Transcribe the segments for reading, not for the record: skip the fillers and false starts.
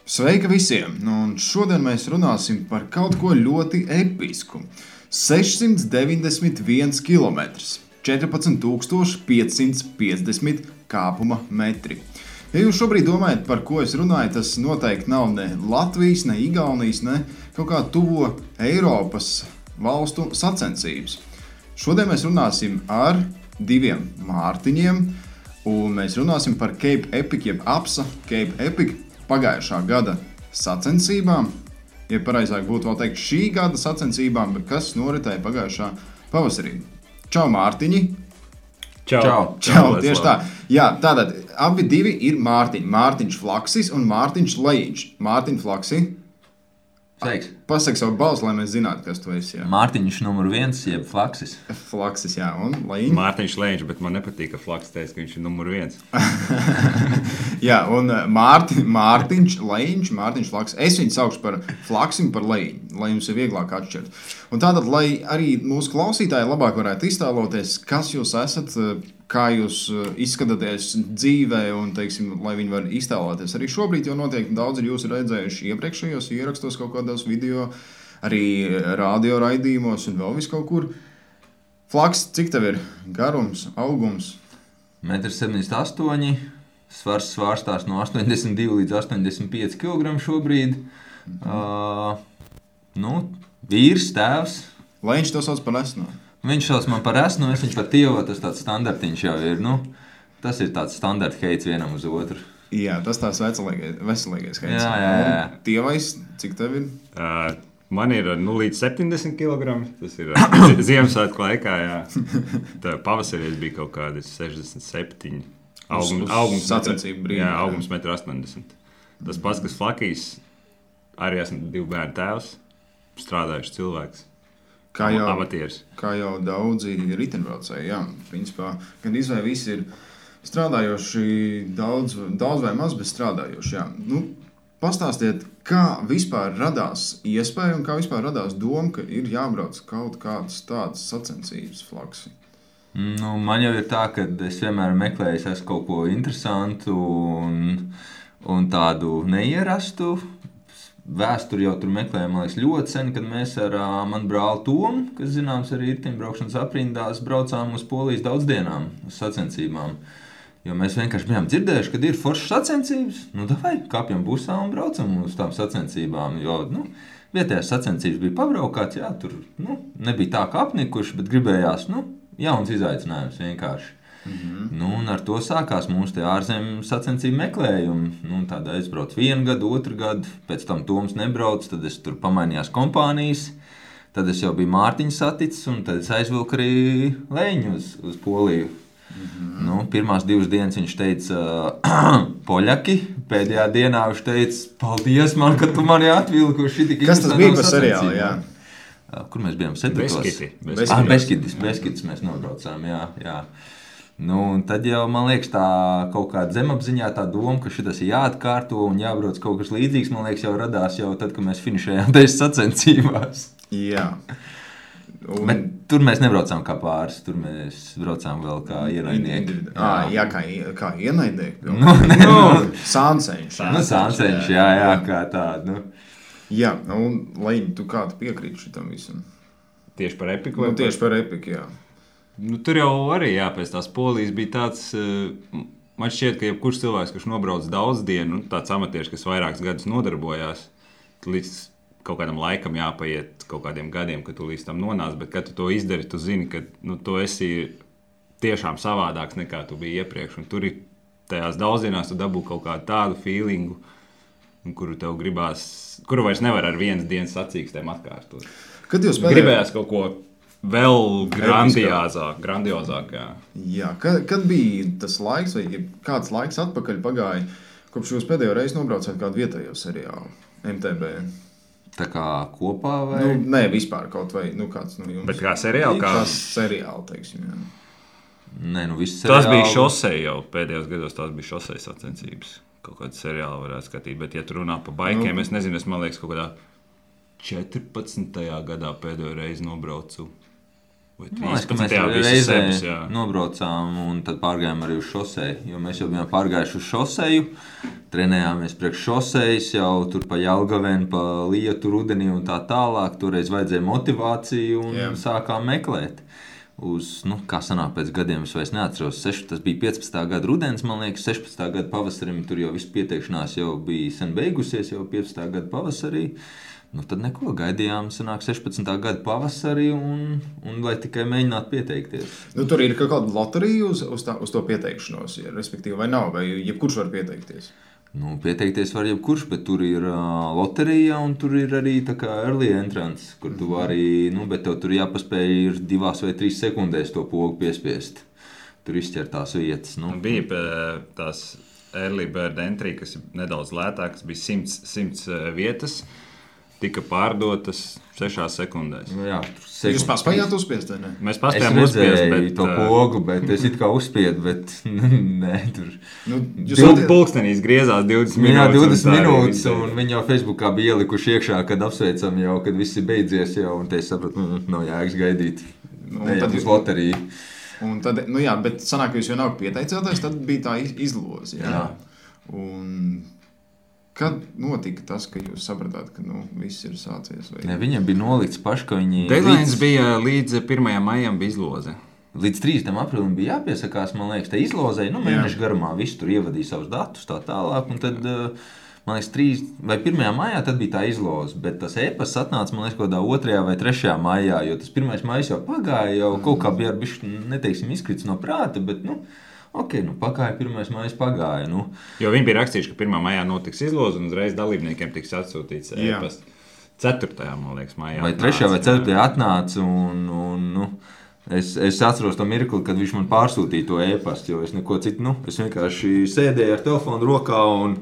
Sveika visiem! Un šodien mēs runāsim par kaut ko ļoti episku. 691 km, 14,550 kāpuma metri. Ja jūs šobrīd domājat, par ko es runāju, tas noteikti nav ne Latvijas, ne Igaunijas, ne kaut kā tuvo Eiropas valstu sacensības. Šodien mēs runāsim ar diviem Mārtiņiem, un mēs runāsim par Cape Epic, jeb APSA Cape Epic pagājušā gada sacensībām, ja pareizāk būtu vēl teikt šī gada sacensībām, bet kas noritēja pagājušā pavasarī. Čau, Mārtiņi! Čau, tieši tā. Jā, tātad abi divi ir Mārtiņi. Mārtiņš Flaksis un Mārtiņš Lejiņš. Mārtiņ Flaksi. Sveiks. Pasaki savu balsi, lai mēs zinātu, kas tu esi. Jā. Mārtiņš numur 1, jeb Flaksis. Flaksis, jā, un Lejiņš. Mārtiņš Lejiņš, bet man nepatīk, ka Flaksis teica, ka viņš ir numur 1. Jā, un Mārtiņš Lejiņš, Mārtiņš Flaksis. Es viņu saukšu par Flaksim, par Lejiņu, lai jums ir vieglāk atšķirt. Un tātad, lai arī mūsu klausītāji labāk varētu iztēloties, kas jūs esat, kā jūs izskatāties dzīvē, un, teiksim, lai viņi var iztēloties. Arī šobrīd jau noteikti daudz ir jūs redzējuši iepriekšējos ierakstos kaut kādos video, arī radio raidījumos un vēl vis kaut kur. Flaks, cik tev ir garums, augums? 1,78 m, svars svārstās no 82 līdz 85 kg šobrīd. Vīrs, tēvs. Lejiņš to sauc par esno. Viņš sauc man par esnu, es viņš par tievu, tas tāds standartiņš jau ir. Tas ir tāds standarta heits vienam uz otru. Jā, tas tās veselīgais heits. Jā. Tievais, cik tev ir? Man ir līdz 70 kg. Tas ir Ziemassvētku laikā. Tā pavasarī bija kaut kādi 67. Augums sacensību brīdī. Jā, augums 1,80 m. Tas pats, kas Flakijs, arī esmu 2 bērnu tēvs, strādājuši cilvēks. Kā amatieris. Kā jau daudzi riteņbraucēji, jā, principā, gan izvēl visi ir strādājoši daudz vai maz, bet strādājoši, jā. Pastāstiet, kā vispār radās iespēja un kā vispār radās doma, ka ir jābrauc kaut kādas tādas sacensības, Flaksi? Man jau ir tā, ka es vienmēr meklēju kaut ko interesantu un tādu neierastu. Vēsturi jau tur meklējām, man liekas, ļoti sen, kad mēs ar manu brāli Tomu, kas zināms arī riteņbraukšanas aprindās, braucām uz Polijas daudzdienām, uz sacensībām. Jo mēs vienkārši bijām dzirdējuši, kad ir foršas sacensības, davai, kāpjam busā un braucam uz tām sacensībām. Jo, vietējās sacensības bija pabraukāts, jā, tur nebija tā kā apnikuši, bet gribējās, jauns izaicinājums vienkārši. Un ar to sākās mūsu ārzemju sacensību meklējumi. Tad aizbraucu 1 gadu, 2 gadu, pēc tam Toms nebrauc, tad es tur pamainījās kompānijas, tad es jau biju Mārtiņu saticis, un tad es aizvilku arī Lejiņu uz Poliju. Pirmās 2 dienas viņš teica poļaki, pēdējā dienā viņš teica, paldies man, ka tu mani atvilku. Kas tas bija par seriālu, jā? Kur mēs bijām? Beskidis mēs nobraucām, jā. Tad jau, man liekas, tā kaut kāda zemapziņā tā doma, ka šitas ir jāatkārto un jābrauc kaut kas līdzīgs, man liekas, jau radās jau tad, kad mēs finišējām tajās sacensībās. Jā. Bet tur mēs nebraucām kā pāris, tur mēs braucām vēl kā ienaidnieki. Jā, kā ienaidnieki? Sānceņš. Sānceņš, jā, kā tādu. Jā, un Lejiņ, tu kā tu piekrīti šitam visam? Tieši par Epiku? Tieši par Epiku, jā. Tur jau arī, pēc tās Polijas bija tāds, man šķiet, ka jebkurš cilvēks, kurš nobrauc daudz dienu, tāds amatieris, kas vairākus gadus nodarbojās, līdz kaut kādam laikam jāpaiet kaut kādiem gadiem, kad tu līdz tam nonāc, bet kad tu to izdari, tu zini, ka tu esi tiešām savādāks nekā tu biji iepriekš, un tur ir tajās daudzdienās tu dabū kaut kādu tādu feelingu, kuru tev gribās, kuru vairs nevar ar 1 dienas sacīkstēm atkārtot. Kad jūs gribējās kaut ko vēl grandiozāk, jā. Jā, kad bija tas laiks, vai kāds laiks atpakaļ pagāja, kopš jūs pēdējo reizi nobraucāt kādu vietējo seriālu, MTB? Tā kā kopā vai? Nē, vispār kaut vai, kāds no jums. Bet kā seriāli? Kā seriāli, teiksim, jā. Nē, visi seriāli. Tas bija šosei jau, pēdējos gados tās bija šosei sacensības. Kaut kādu seriālu varētu skatīt, bet ja tu runā par baikiem, es nezinu, man liekas, kaut kādā 14. gadā pēdējo reizi nobraucu Man liekas, ka mēs reizē nobraucām un tad pārgājām arī uz šoseju, jo mēs jau bijām pārgājuši uz šoseju, trenējāmies priekš šosejas jau tur pa Jelgaveni, pa Lietu, Rudenī un tā tālāk. Toreiz vajadzēja motivāciju un sākām meklēt. Kā sanāk pēc gadiem, es vairs neatceros, tas bija 15. gada rudens, man liekas, 16. gada pavasarim, tur jau viss pieteikšanās jau bija sen beigusies, jau 15. gada pavasarī. Tad neko gaidījām, sanāk 16. gada pavasarī un lai tikai mēģinātu pieteikties. Tur ir kaut kāda loterija uz to pieteikšanos, respektīvi, vai nav, vai jebkurš var pieteikties? Pieteikties var jebkurš, bet tur ir loterija un tur ir arī tā kā early entrance, kur tu vari, bet tev tur jāpaspēj ir 2 vai 3 sekundēs to pogu piespiest. Tur izķer tās vietas. Bija tās early bird entry, kas ir nedaudz lētākas, bija 100 vietas. Tika pārdotas 6 sekundēs. Jā, jūs paspējāt uzspiest, vai ne? Mēs paspējām uzspiest, bet... to pogu, bet es it kā uzspiedu, bet nē, tur... Pulkstenīs griezās 20 minūtes. Jā, 20 minūtes, un viņi jau Facebookā bija ielikuši iekšā, kad apsveicam jau, kad viss ir beidzies jau, un te es sapratu, nav jāiks gaidīt. Tad uz loteriju. Un tad, jā, bet sanāk, ka jūs jau nav pieteicēties, tad bija tā izloze, jā. Un... Kad notika tas, ka jūs sapratāt, ka viss ir sācies? Ne, viņiem bija nolikts paši, ka viņi... Deadlines bija līdz 1. maijam bija izloze. Līdz 3. aprīlim bija jāpiesakās, man liekas, te izlozei. Mēnešu garumā visu tur ievadīja savus datus tā tālāk. Un tad, man liekas, 3. vai 1. maijā tad bija tā izloze. Bet tas e-pasts atnāca, man liekas, kaut kādā 2. vai 3. maijā, jo tas 1. maijs jau pagāja, jau kaut kā bija bišķi, neteiksim, izkrits no prāta, bet, pagāja 1. maijs pagāja. Jo viņi bija rakstījuši, ka 1. maijā notiks izloze un uzreiz dalībniekiem tiks atsūtīts e-pasts. 4. man liekas, maijā. Vai 3. vai 4. atnāca un es atceros to mirkli, kad viņš man pārsūtīja to e-pastu, jo es neko citu, es vienkārši sēdēju ar telefonu rokā un...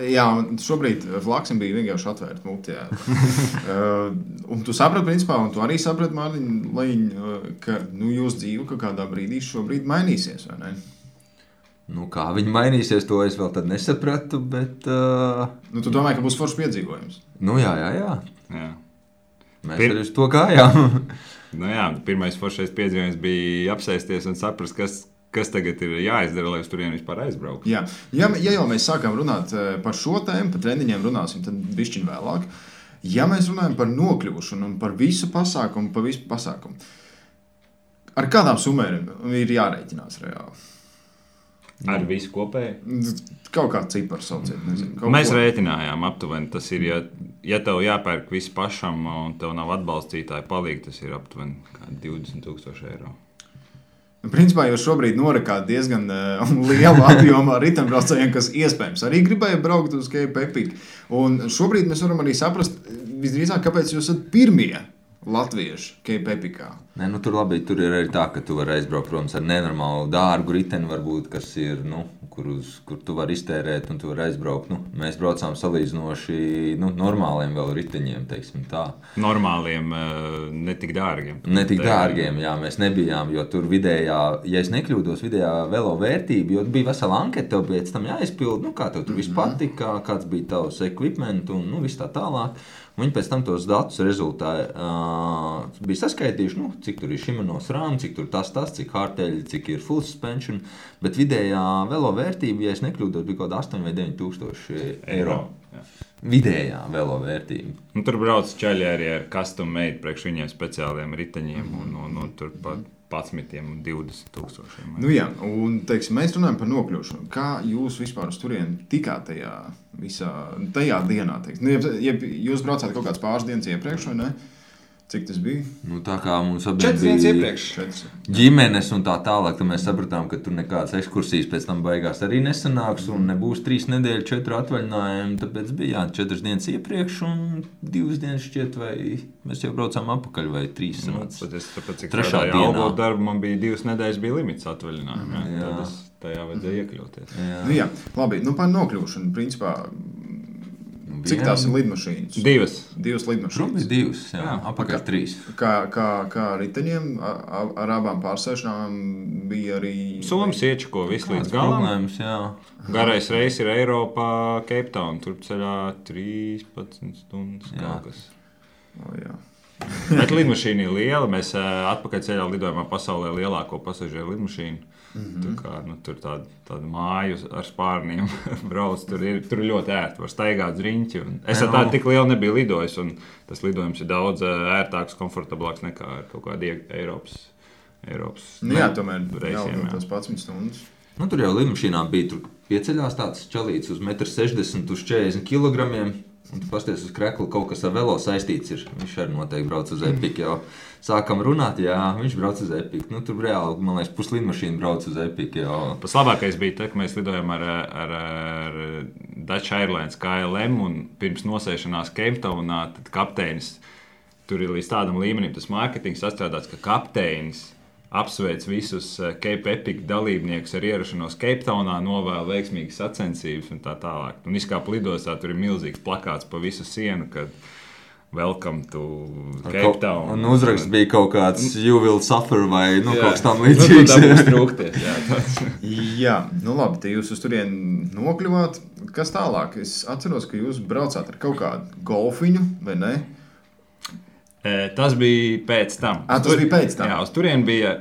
Jā, šobrīd Flaksim bija vienkārši atvērta muti. Un tu saprati, principā, un tu arī saprati, Mārtiņ, ka jūsu dzīve kaut kādā brīdī šobrīd mainīsies, vai ne? Kā viņi mainīsies, to es vēl tad nesapratu, bet... Tu domāji, ka būs foršs piedzīvojums? Jā. Mēs arī uz to gājām. Pirmais foršais piedzīvojums bija apsēsties un saprast, kas tagad ir jāizdara, lai uz turieni vispār aizbrauktu. Ja jau mēs sākām runāt par šo tēmu, par treniņiem runāsim, tad bišķiņ vēlāk. Ja mēs runājam par nokļūšanu un par visu pasākumu, ar kādām summām ir jārēķinās reāli? Ar visu kopēju? Kaut kāds cipars sauciet, nezinu. Mēs rēķinājām aptuveni, tas ir, ja tev jāpērk visu pašam un tev nav atbalstītāji palīgi, tas ir aptuveni 20,000 eiro. Principā jūs šobrīd norakāt diezgan lielu apjomu ritembraucējiem, kas iespējams arī gribēja braukt uz Cape Epic. Un šobrīd mēs varam arī saprast, visdrīzāk, kāpēc jūs esat pirmie latvieši Cape Epicā. Tur labi, tur ir arī tā, ka tu vari aizbraukt, protams, ar nenormālu dārgu riteni, varbūt, kas ir, kur tu vari iztērēt un tu vari aizbraukt. Mēs braucām salīdzinoši normāliem vēl riteņiem, teiksim tā. Normāliem, netik dārgiem. Netik dārgiem, jā, mēs nebijām, jo tur vidējā, ja es nekļūdos, vidējā velo vērtība, jo bija vesela anketa, tev pēc tam jāizpild, kā tev tur viss patika, kāds bija tavs equipment un viss tā tālāk. Viņi pēc tam tos datus rezultāti bija saskaitījuši, cik tur ir Shimano SRAM, cik tur tas, cik hardtail, cik ir full suspension, bet vidējā velo vērtība, ja es nekļūdos, bija kaut 8 vai 9 tūkstoši eiro. Jā. Vidējā velo vērtība. Tur brauc čaļi arī ar custom made priekš viņiem speciāliem riteņiem un tur pat 11 un 20 tūkstošiem. Un teiksim, mēs runājam par nokļūšanu. Kā jūs vispār uz turieni tikāt tajā dienā? Ja jūs braucāt kaut kāds pāris dienas iepriekš, vai ne? Cik tas bija? Tā kā mums bija ģimenes un tā tālāk, tad mēs sapratām, ka tur nekādas ekskursijas pēc tam beigās arī nesanāks un nebūs 3 nedēļu 4 atvaļinājumi, tāpēc bija 4 dienas iepriekš un 2 dienas šķiet, vai mēs jau braucām apakaļ vai 3 sanāca. Tāpēc, cik strādāja algot darbu, man bija 2 nedēļas bija limits atvaļinājumi, tad es tajā vajadzēja iekļauties. Labi, par nokļūšanu, principā, cik tās ir lidmašīnas? 2 lidmašīnas. Bija 2, jā, apakaļ 3. Kā riteņiem ar abām pārsēšanām bija arī... Somas iečako visu līdz galam. Problēmas, jā. Garais reis ir Eiropā, Cape Town, tur ceļā 13 stundas kaut kas. Jā. Bet lidmašīna ir liela. Mēs atpakaļceļā lidojumā pasaulē lielāko pasažieru lidmašīnu. Tur tāda māju ar spārniem brauc. Tur ir ļoti ērti. Var staigāt uz riņķi. Es ar tādu tik lielu nebiju lidojis. Tas lidojums ir daudz ērtāks, komfortablāks nekā ar kaut kādu Eiropas tomēr reisiem. Tas 11 stundas. Tur jau lidmašīnā bija pieceļās tāds čalīts uz 1,60 m uz 40 kg. Un tu pasties uz kreklu, kaut kas ar velo saistīts ir. Viņš arī noteikti brauc uz Epiku. Jau sākam runāt, jā, viņš brauc uz Epiku. Tur reāli, man liekas, puslidmašīna brauc uz Epiku. Pats labākais bija tas, ka mēs lidojām ar Dutch Airlines KLM un pirms nosēšanās Cape Townā, tad kapteinis, tur ir līdz tādam līmenim tas mārketings sastrādāts, ka kapteinis apsveic visus Cape Epic dalībniekus ar ierašanos Cape Townā, novēl veiksmīgas sacensības un tā tālāk. Un izkāpa lidostā, tur ir milzīgs plakāts pa visu sienu, kad welcome to Cape Town. Un uzraksts bija kaut kāds you will suffer vai kaut kas tam līdzīgs. Tā būs trūkties, Jā, labi, te jūs uz turieni nokļuvāt. Kas tālāk? Es atceros, ka jūs braucāt ar kaut kādu golfiņu, vai ne? Tas bija pēc tam. Tas bija pēc tam? Jā, uz turieni bija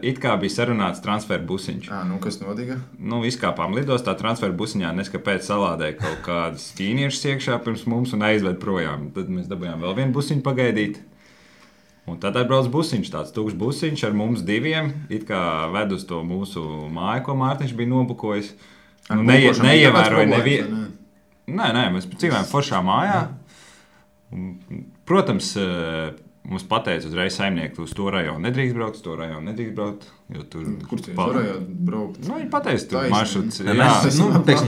sarunāts transferu busiņš. Kas notika? Izkāpām lidostā, transferu busiņā neskapēc salādēja kaut kādas ķīniešus iekšā pirms mums un aizved projām. Tad mēs dabūjām vēl vienu busiņu pagaidīt. Un tad atbrauc busiņš, tāds tukšs busiņš ar mums diviem, ved uz to mūsu māju, ko Mārtiņš bija nobukojis. Neievēroja nevienu. Nē, mēs dzīvojam foršā mājā. Protams, mums pateica uzreiz saimnieki, uz to rajonu nedrīkst braukt, uz to rajonu nedrīkst braukt. Kur tu varēji braukt? Viņi pateica, tur maršruts.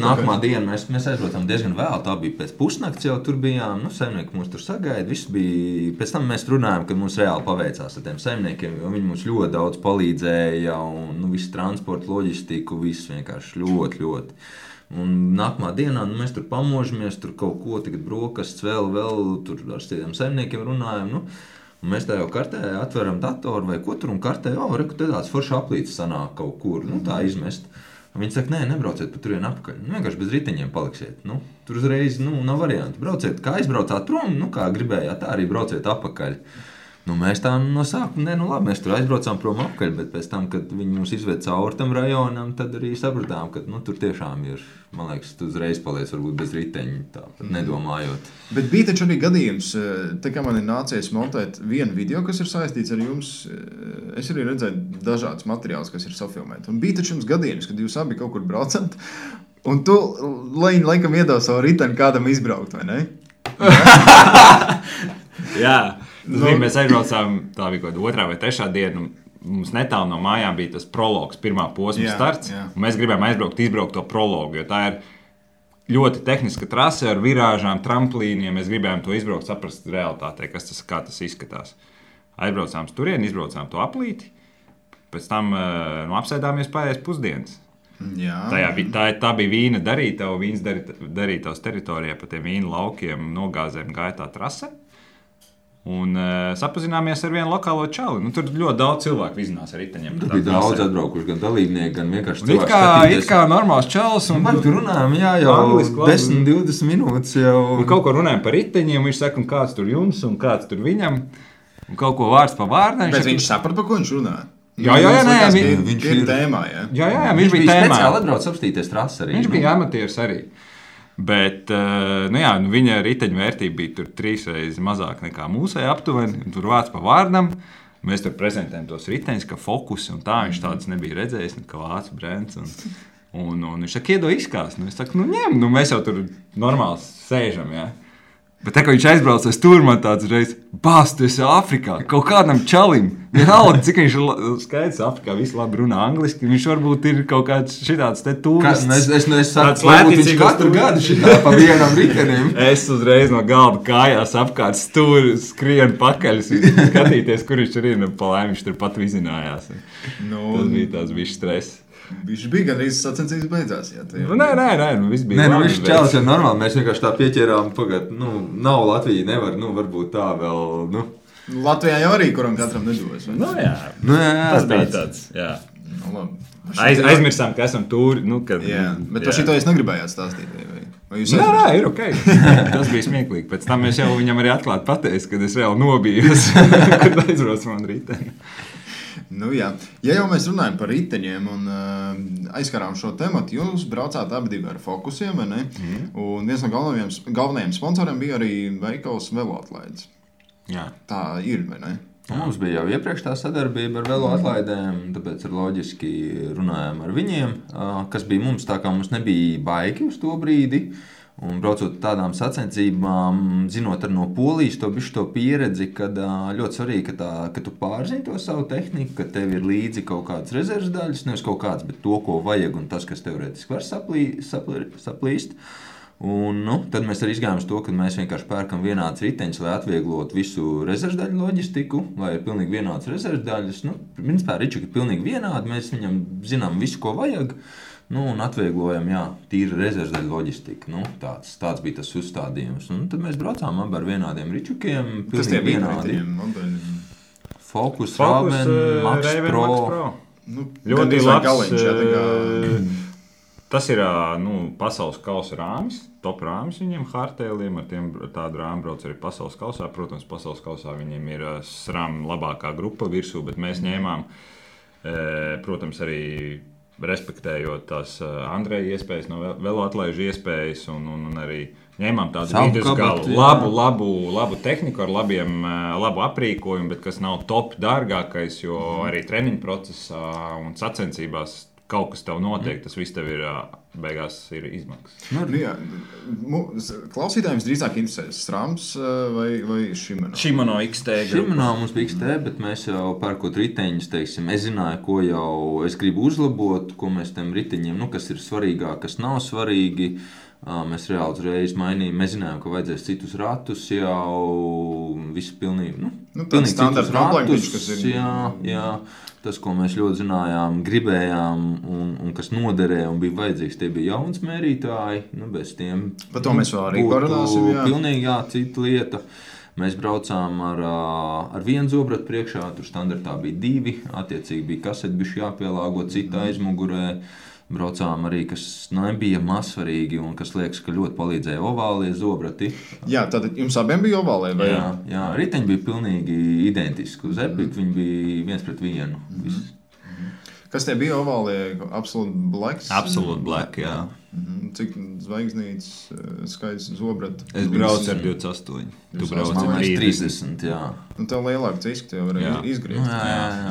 Nākamā diena mēs aizbraucām diezgan vēl. Tā bija pēc pusnakts jau tur bijām. Saimnieki mūs tur sagaida. Viss bija. Pēc tam mēs runājām, ka mums reāli paveicās ar tiem saimniekiem, jo viņi mums ļoti daudz palīdzēja un visu transportu, loģistiku, viss vienkārši ļoti. Un nākamā dienā mēs tur pamožamies, tur kaut ko tagad brokastis vēl tur ar tiem saimniekiem runājam. Mēs tā jau kartē atveram datoru vai ko tur un kartē, reku te tāds forši aplīts sanāk kaut kur, tā izmest. Un viņi saka, nebrauciet pa turienu apakaļ, vienkārši bez riteņiem paliksiet. Tur uzreiz nav variantu. Brauciet, kā aizbraucāt prom, kā gribējāt, tā arī brauciet apakaļ. Mēs tā no sākuma, labi, mēs tur aizbraucām prom apakaļ, bet pēc tam, kad viņi mums izved cauri tam rajonam, tad arī sapratām, ka tur tiešām ir, man liekas, tu uzreiz paliec varbūt bez riteņa, tāpat nedomājot. Bet bija taču arī gadījums, te kā man ir nācies montēt vienu video, kas ir saistīts ar jums, es arī redzēju dažādas materiālus, kas ir safilmēti. Un bija taču jums gadījums, kad jūs abi kaut kur braucat, un tu laikam iedev savu riteni kādam izbraukt, vai ne? Jā. Mēs aizbraucām, tā bija kaut kāda 2. vai 3. diena. Mums netālu no mājām bija tas prologs, pirmā posma starts. Mēs gribējām izbraukt to prologu, jo tā ir ļoti tehniska trase ar virāžām, tramplīniem. Mēs gribējām to izbraukt, saprast realitātē, kā tas izskatās. Aizbraucām uz turieni, izbraucām to aplīti. Pēc tam apsēdāmies pārējais pusdienas. Tā bija vīna darītava, vīns darītavas teritorijā pa tiem vīna laukiem, nogāzēm gāja tā trase. Un sapazināmies ar vienu lokālo čali. Tur ļoti daudz cilvēku vizinās ar riteņiem. Tur bija daudz atbraukuši, gan dalībnieki, gan vienkārši cilvēki skatīties. It kā normāls čalis. Man tur runājam, jau 10-20 minūtes jau. Un kaut ko runājam par riteņiem, viņš saka, un kāds tur jums, un kāds tur viņam. Un kaut ko vārds pa vārdām. Bet viņš saprata, par ko viņš runā? Jā, viņš ir tēmā, jā. Jā, viņš bija tēmā. Speciāli atbrauc apstīties trasi arī. Viņš bija amatieris arī. Bet viņa riteņu vērtība bija tur 3 reizes mazāk nekā mūsēji aptuveni. Tur vārds pa vārdam. Mēs tur prezentējam tos riteņus, ka fokus un tā. Viņš tāds nebija redzējis, kā vācu brands. Un viņš saka, iedod izkāst. Es saku, ņem. Mēs jau tur normāli sēžam, jā. Bet tā, ka viņš aizbrauc, es tur man tāds reiz, tu esi Āfrikā, kaut kādam čalim. Vienalga, cik viņš ir skaidrs, Āfrikā visi labi runā angliski, viņš varbūt ir kaut kāds šitāds te tūrists. Es saku, varbūt viņš katru gadu šitā pa vienam ritenim. Es uzreiz no galda kājās apkārt stūri, skrienu pakaļ, skatīties, kur viņš tur ir, pa laimi viņš tur pat vizinājās. Tas bija tāds bišķi stress. Viņš bija gan arī sacensības beidzās. Jā, nē, viss bija labi. Viņš čēlis jau normāli, mēs vienkārši tā pieķērām, nav Latvija, nevar, varbūt tā vēl, Latvijā jau arī, kuram katram nedos. Jā, tas bija tāds, jā. Labi. Aizmirsām, ka esam tūri, Jā, bet par šito es negribējāt stāstīt, Nē, ir ok. Tas bija smieklīgi. Pēc tam es jau viņam arī atklāti pateicu, kad es reāli nobijos, kad aizbraucu man riteni. Nu, jā. Ja jau mēs runājam par riteņiem un aizskarām šo tematu, jūs braucāt abi ar Focusiem, vai ne? Un viens no galvenajiem sponsoriem bija arī veikals Veloatlaides. Jā. Tā ir, vai ne? Mums bija jau iepriekš tā sadarbība ar veloatlaidēm, tāpēc ir loģiski runājām ar viņiem, kas bija mums tā kā mums nebija baigi uz to brīdi. Un braucot tādām sacensībām, zinot ar no Polijas to pieredzi, kad ļoti svarīgi, ka tu pārzini to savu tehniku, ka tev ir līdzi kaut kādas rezerves daļas, nevis kaut kāds, bet to, ko vajag un tas, kas teorētiski var saplīst. Un, tad mēs arī izgājām uz to, ka mēs vienkārši pērkam vienādas riteņus, lai atvieglotu visu rezervdaļu loģistiku, lai ir pilnīgi vienādas rezervdaļas. Principā ričuki ir pilnīgi vienādi, mēs viņam zinām visu, ko vajag, un atvieglojam, tīri rezervdaļu loģistiku. Tāds bija tas uzstādījums. Un tad mēs braucām abi ar vienādiem ričukiem, pilnīgi vienādi. Focus, Raven, Max Pro. Ļoti labs. Tas ir pasaules kausa rāmis, top rāmis viņiem Hardtailiem, ar tiem tādu rāmu brauc arī pasaules kausā. Protams, pasaules kausā viņiem ir SRAM labākā grupa virsū, bet mēs ņēmām, protams, arī respektējot tās Andreja iespējas, no veloatlaižu iespējas un arī ņēmām tādu vidusgalu, labu tehniku ar labu aprīkojumu, bet kas nav top dārgākais, jo arī treniņu procesā un sacensībās kaut kas tev notiek, tas viss tev ir beigās ir izmaksas. Klausītājiem drīzāk interesē SRAMs vai Shimano? Shimano XT. Shimano mums bija XT, bet mēs jau pērkot riteņus, teiksim, es zināju, ko jau es gribu uzlabot, ko mēs tiem riteņiem, kas ir svarīgāk, kas nav svarīgi. Mēs reāli uzreiz mainījām. Mēs zinājām, ka vajadzēs citus ratus jau visu pilnīgi. Tāds standarts ratus, kas ir. Jā. Tas, ko mēs ļoti zinājām, gribējām un kas noderēja un bija vajadzīgs, tie bija jauns mērītāji. Bez tiem par to mēs vēl arī parunāsim. Pilnīgi cita lieta. Mēs braucām ar vienu zobratu priekšā, tur standartā bija 2, attiecīgi bija kaseti bišķi jāpielāgo cita aizmugurē. Braucām arī, kas nebija mazsvarīgi un kas liekas, ka ļoti palīdzēja ovālie zobrati. Jā, tad jums abiem bija ovālie? Vai? Jā, riteņi bija pilnīgi identiski. Uz Epic viņi bija 1-1. Kas tie bija ovālie? Absolute Black? Absolute Black, jā. Cik zvaigznītes skaits zobratu? Es braucu ar 28. Tu brauc ar 30, jā. Tev lielāk ciski tev var izgriezt.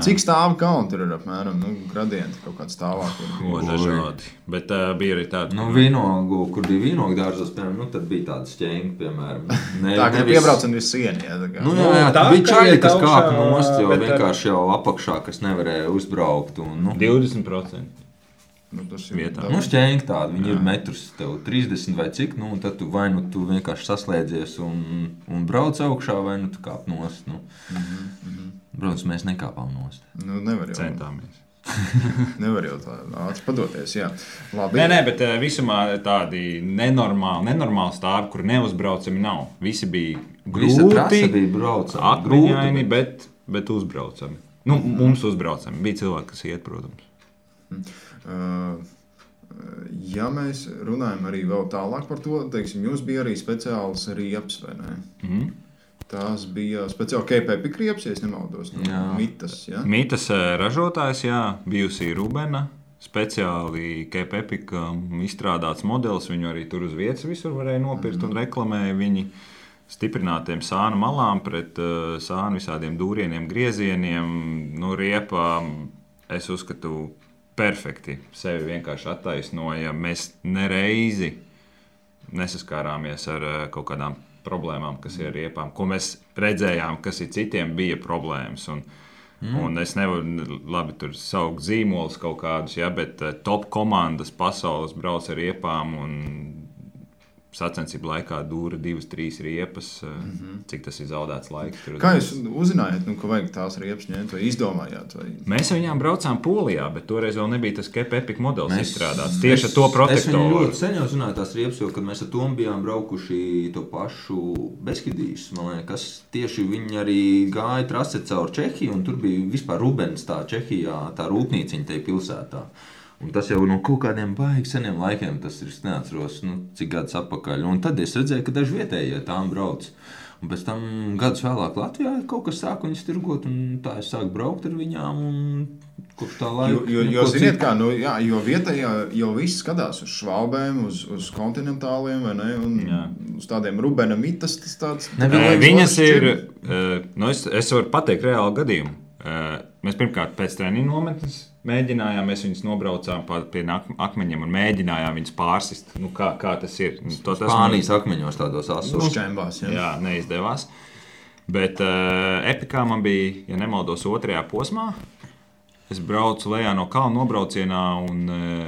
Cik stāvu kaunti ir apmēram? Gradienti kaut kāds stāvāk. Dažādi. Bet bija arī tādi. Vīnogu, kur bija vīnogu dārzos, piemēram, tad bija tāda šķēnga, piemēram. Tā, ka piebraucam visu sieni. Tā bija čaļi, kas kāpa nost, jo vienkārši jau apakšā, kas nevarēja uzbraukt. 20%. Tas ir vietā. Šķēngi tādi, viņi ir metrus tev 30 vai cik, un tad tu vai tu vienkārši saslēdzies un brauc augšā, vai tu kāp nost. Protams, mēs nekāpām nost. Nevar jau. Centāmies. Nevar jau tā ātri padoties, jā. Labi. Nē, bet visumā tādi nenormāli stāvi, kur neuzbraucami nav. Visi bija grūti, akmeņaini, bet uzbraucami. Mums uzbraucami. Bija cilvēki, kas iet, protams. Ja mēs runājam arī vēl tālāk par to, teiksim, jums bija arī speciāls riepas, vai ne? Tās bija speciāli KPP riepas, ja es nemaldos, Mitas, jā? Mitas ražotājs, jā, bijusi Rubena, speciāli KPP izstrādāts modelis, viņu arī tur uz vietas visur varēja nopirkt un reklamēja viņi stiprinātiem sānu malām pret sānu visādiem dūrieniem, griezieniem, riepa, es uzskatu, perfekti sevi vienkārši attaisnoja. Mēs nereizi nesaskārāmies ar kaut kādām problēmām, kas ir ar riepām, ko mēs redzējām, kas ir citiem bija problēmas. Un es nevaru labi tur saukt zīmolus kaut kādus, bet top komandas pasaules brauc ar riepām un sacensību laikā dūra 2-3 riepas, cik tas ir zaudēts laiks. Kā jūs uzzinājāt, ka vajag tās riepas ņemt vai izdomājāt? Vai? Mēs viņām braucām Polijā, bet toreiz vēl nebija tas KPP modelis izstrādāts. Tieši ar to protektoru. Es viņu ļoti sen jau zināju tās riepas, jo, kad mēs ar Tomu bijām braukuši to pašu Beskidijas, man liekas, tieši viņi arī gāja trase caur Čehiju, un tur bija vispār Rubens tā Čehijā, tā rūpnīciņa tajā pilsētā. Un tas jau no kaut kādiem baigi seniem laikiem, tas ir, es neatceros, cik gadus atpakaļ. Un tad es redzēju, ka daži vietējie tām brauc. Un pēc tam gadus vēlāk Latvijā kaut kas sāka viņas tirgot, un tā es sāku braukt ar viņām, un kopš tā laika... Jo ziniet kā, jo vietējā jau viss skatās uz švābēm, uz kontinentāliem, vai ne, un uz tādiem Rubena mitas, tas tāds... Viņas ir, es varu pateikt reāli gadījumu. Mēs pirmkārt pēc treniņu nometnes mēģinājām, mēs viņus nobraucām pie akmeņiem un mēģinājām viņus pārsist. Kā tas ir? Spānijas akmeņos tādos asos. Uzkaimbās, Jā, neizdevās. Bet epikā man bija, ja nemaldos, 2. posmā. Es braucu lejā no kalna nobraucienā un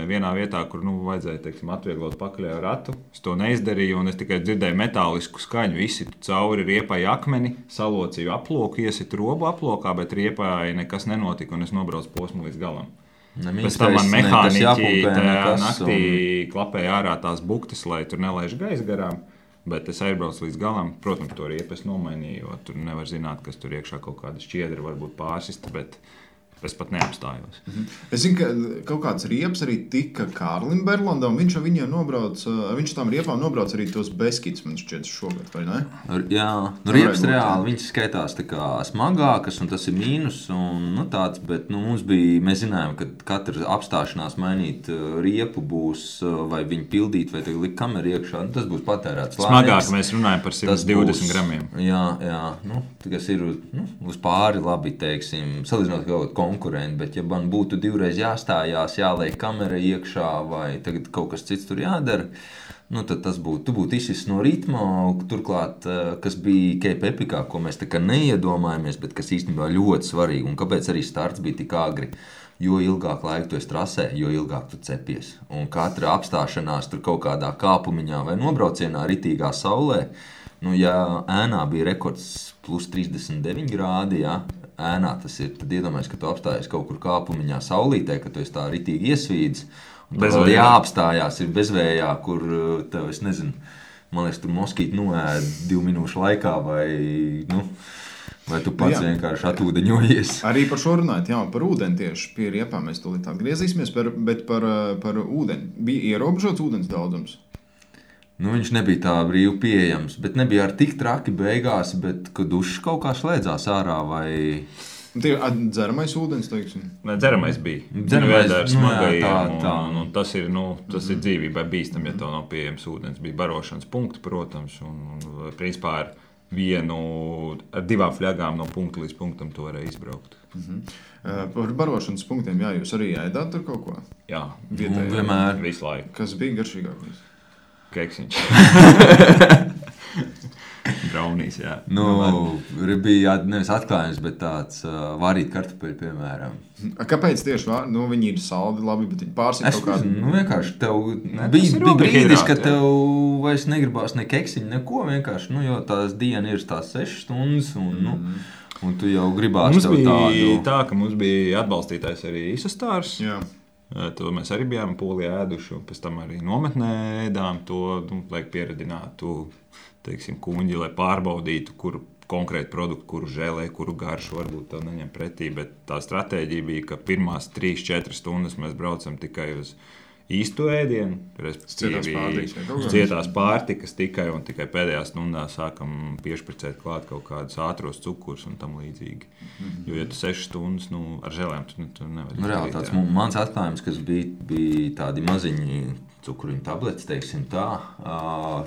vienā vietā, kur vajadzēja, teiksim, atvieglot pakaļējo ratu. Es to neizdarīju un es tikai dzirdēju metālisku skaņu. Izsitu cauri riepai akmeni, salocīju aploku, iesitu robu aplokā, bet riepai nekas nenotika un es nobraucu posmu līdz galam. Pēc tam man mehāniķi tajā naktī klapēja ārā tās buktas, lai tur nelaiž gaisa garām. Bet es aizbraucu līdz galam. Protams, to riepu es nomainīju, jo tur nevar zināt, kas tur iekšā kaut kāda šķiedra varbūt pārsista, bet es pat neapstājos. Es zinu, ka kaut kāds riepas arī tika Kārlim Berlandam. Viņš ar viņiem nobrauc, viņš tām riepām nobrauc arī tos Beskids, man šķiet, šogad, vai ne? Jā, riepas reāli, viņas skaitās tā kā smagākas, un tas ir mīnus, un tāds, bet mums bija, mēs zinājām, ka katra apstāšanās mainīt riepu būs, vai viņu pildīt, vai likt kameru iekšā, tas būs patērēts laiks. Smagāk mēs runājam par 120 gramiem. Jā, tas ir uz pāri labi, teiksim, salīdzinot kaut konkurenti, bet ja man būtu 2 reizes jāstājās, jāliek kamera iekšā vai tagad kaut kas cits tur jādara, tad tas būtu, tu būtu izsis no ritma, turklāt, kas bija Cape Epicā, ko mēs tā kā neiedomājamies, bet kas īstenībā ļoti svarīgi, un kāpēc arī starts bija tik agri, jo ilgāk laika tu esi trasē, jo ilgāk tu cepies, un katra apstāšanās tur kaut kādā kāpumiņā vai nobraucienā ritīgā saulē, ja ēnā bija rekords plus 39 grādi, ēnā tas ir, tad iedomājies, ka tu apstājies kaut kur kāpumiņā saulītē, ka tu esi tā ritīgi iesvīdis, un tad vēl jāapstājās ir bezvējā, kur tev, es nezinu, man liekas, tur moskīti noēd 2 minūšu laikā, vai tu pats vienkārši atūdeņojies. Arī par šo runājot, par ūdeni tieši pie riepām mēs tūlīt atgriezīsimies, bet par ūdeni. Bija ierobežots ūdens daudzums? Viņš nebija tā brīvi pieejams, bet nebija ar tik traki beigās, bet kad dušas kaut kā slēdzās ārā vai... Tie dzeramais ūdens, teiksim? Dzeramais bija. Dzeramais, un tas ir dzīvībai bīstam, ja tev nav pieejams ūdens. Bija barošanas punkti, protams, un principā ar 2 fļagām no punkta līdz punktam to varēja izbraukt. Par barošanas punktiem, jūs arī ēdāt tur kaut ko? Jā, vienmēr. Visu laiku. Kas bija garšīgākais? Keksiņš. Braunīs, jā. Bija nevis atklājums, bet tāds varīt kartupeļu, piemēram. Kāpēc tieši viņi ir saldi labi, bet viņi pārsit kaut kādu? Vienkārši tev bija brīdis, ka tev vairs negribās ne keksiņu, neko vienkārši, jo tās diena ir tās 6 stundas, un tu jau gribās tev tādu. Mums bija tā, ka mums bija atbalstītājs arī Isostārs. Jā. To mēs arī bijām Polijā ēduši, un pēc tam arī nometnē ēdām to, lai pieredinātu, teiksim, kuņģi, lai pārbaudītu, kuru konkrētu produktu, kuru žēlē, kuru garšu varbūt tev neņem pretī, bet tā stratēģija bija, ka pirmās 3-4 stundas mēs braucam tikai uz īstu ēdienu, respektīvi cietās pārtikas tikai un tikai pēdējā stundā sākam piešpricēt klāt kaut kādus ātros cukurus un tam līdzīgi. Jo, ja tu 6 stundas ar žēlēm, tu nevar izdarīt. Reāli tāds mans atklājums, kas bija tādi maziņi cukuriņu tabletes, teiksim tā.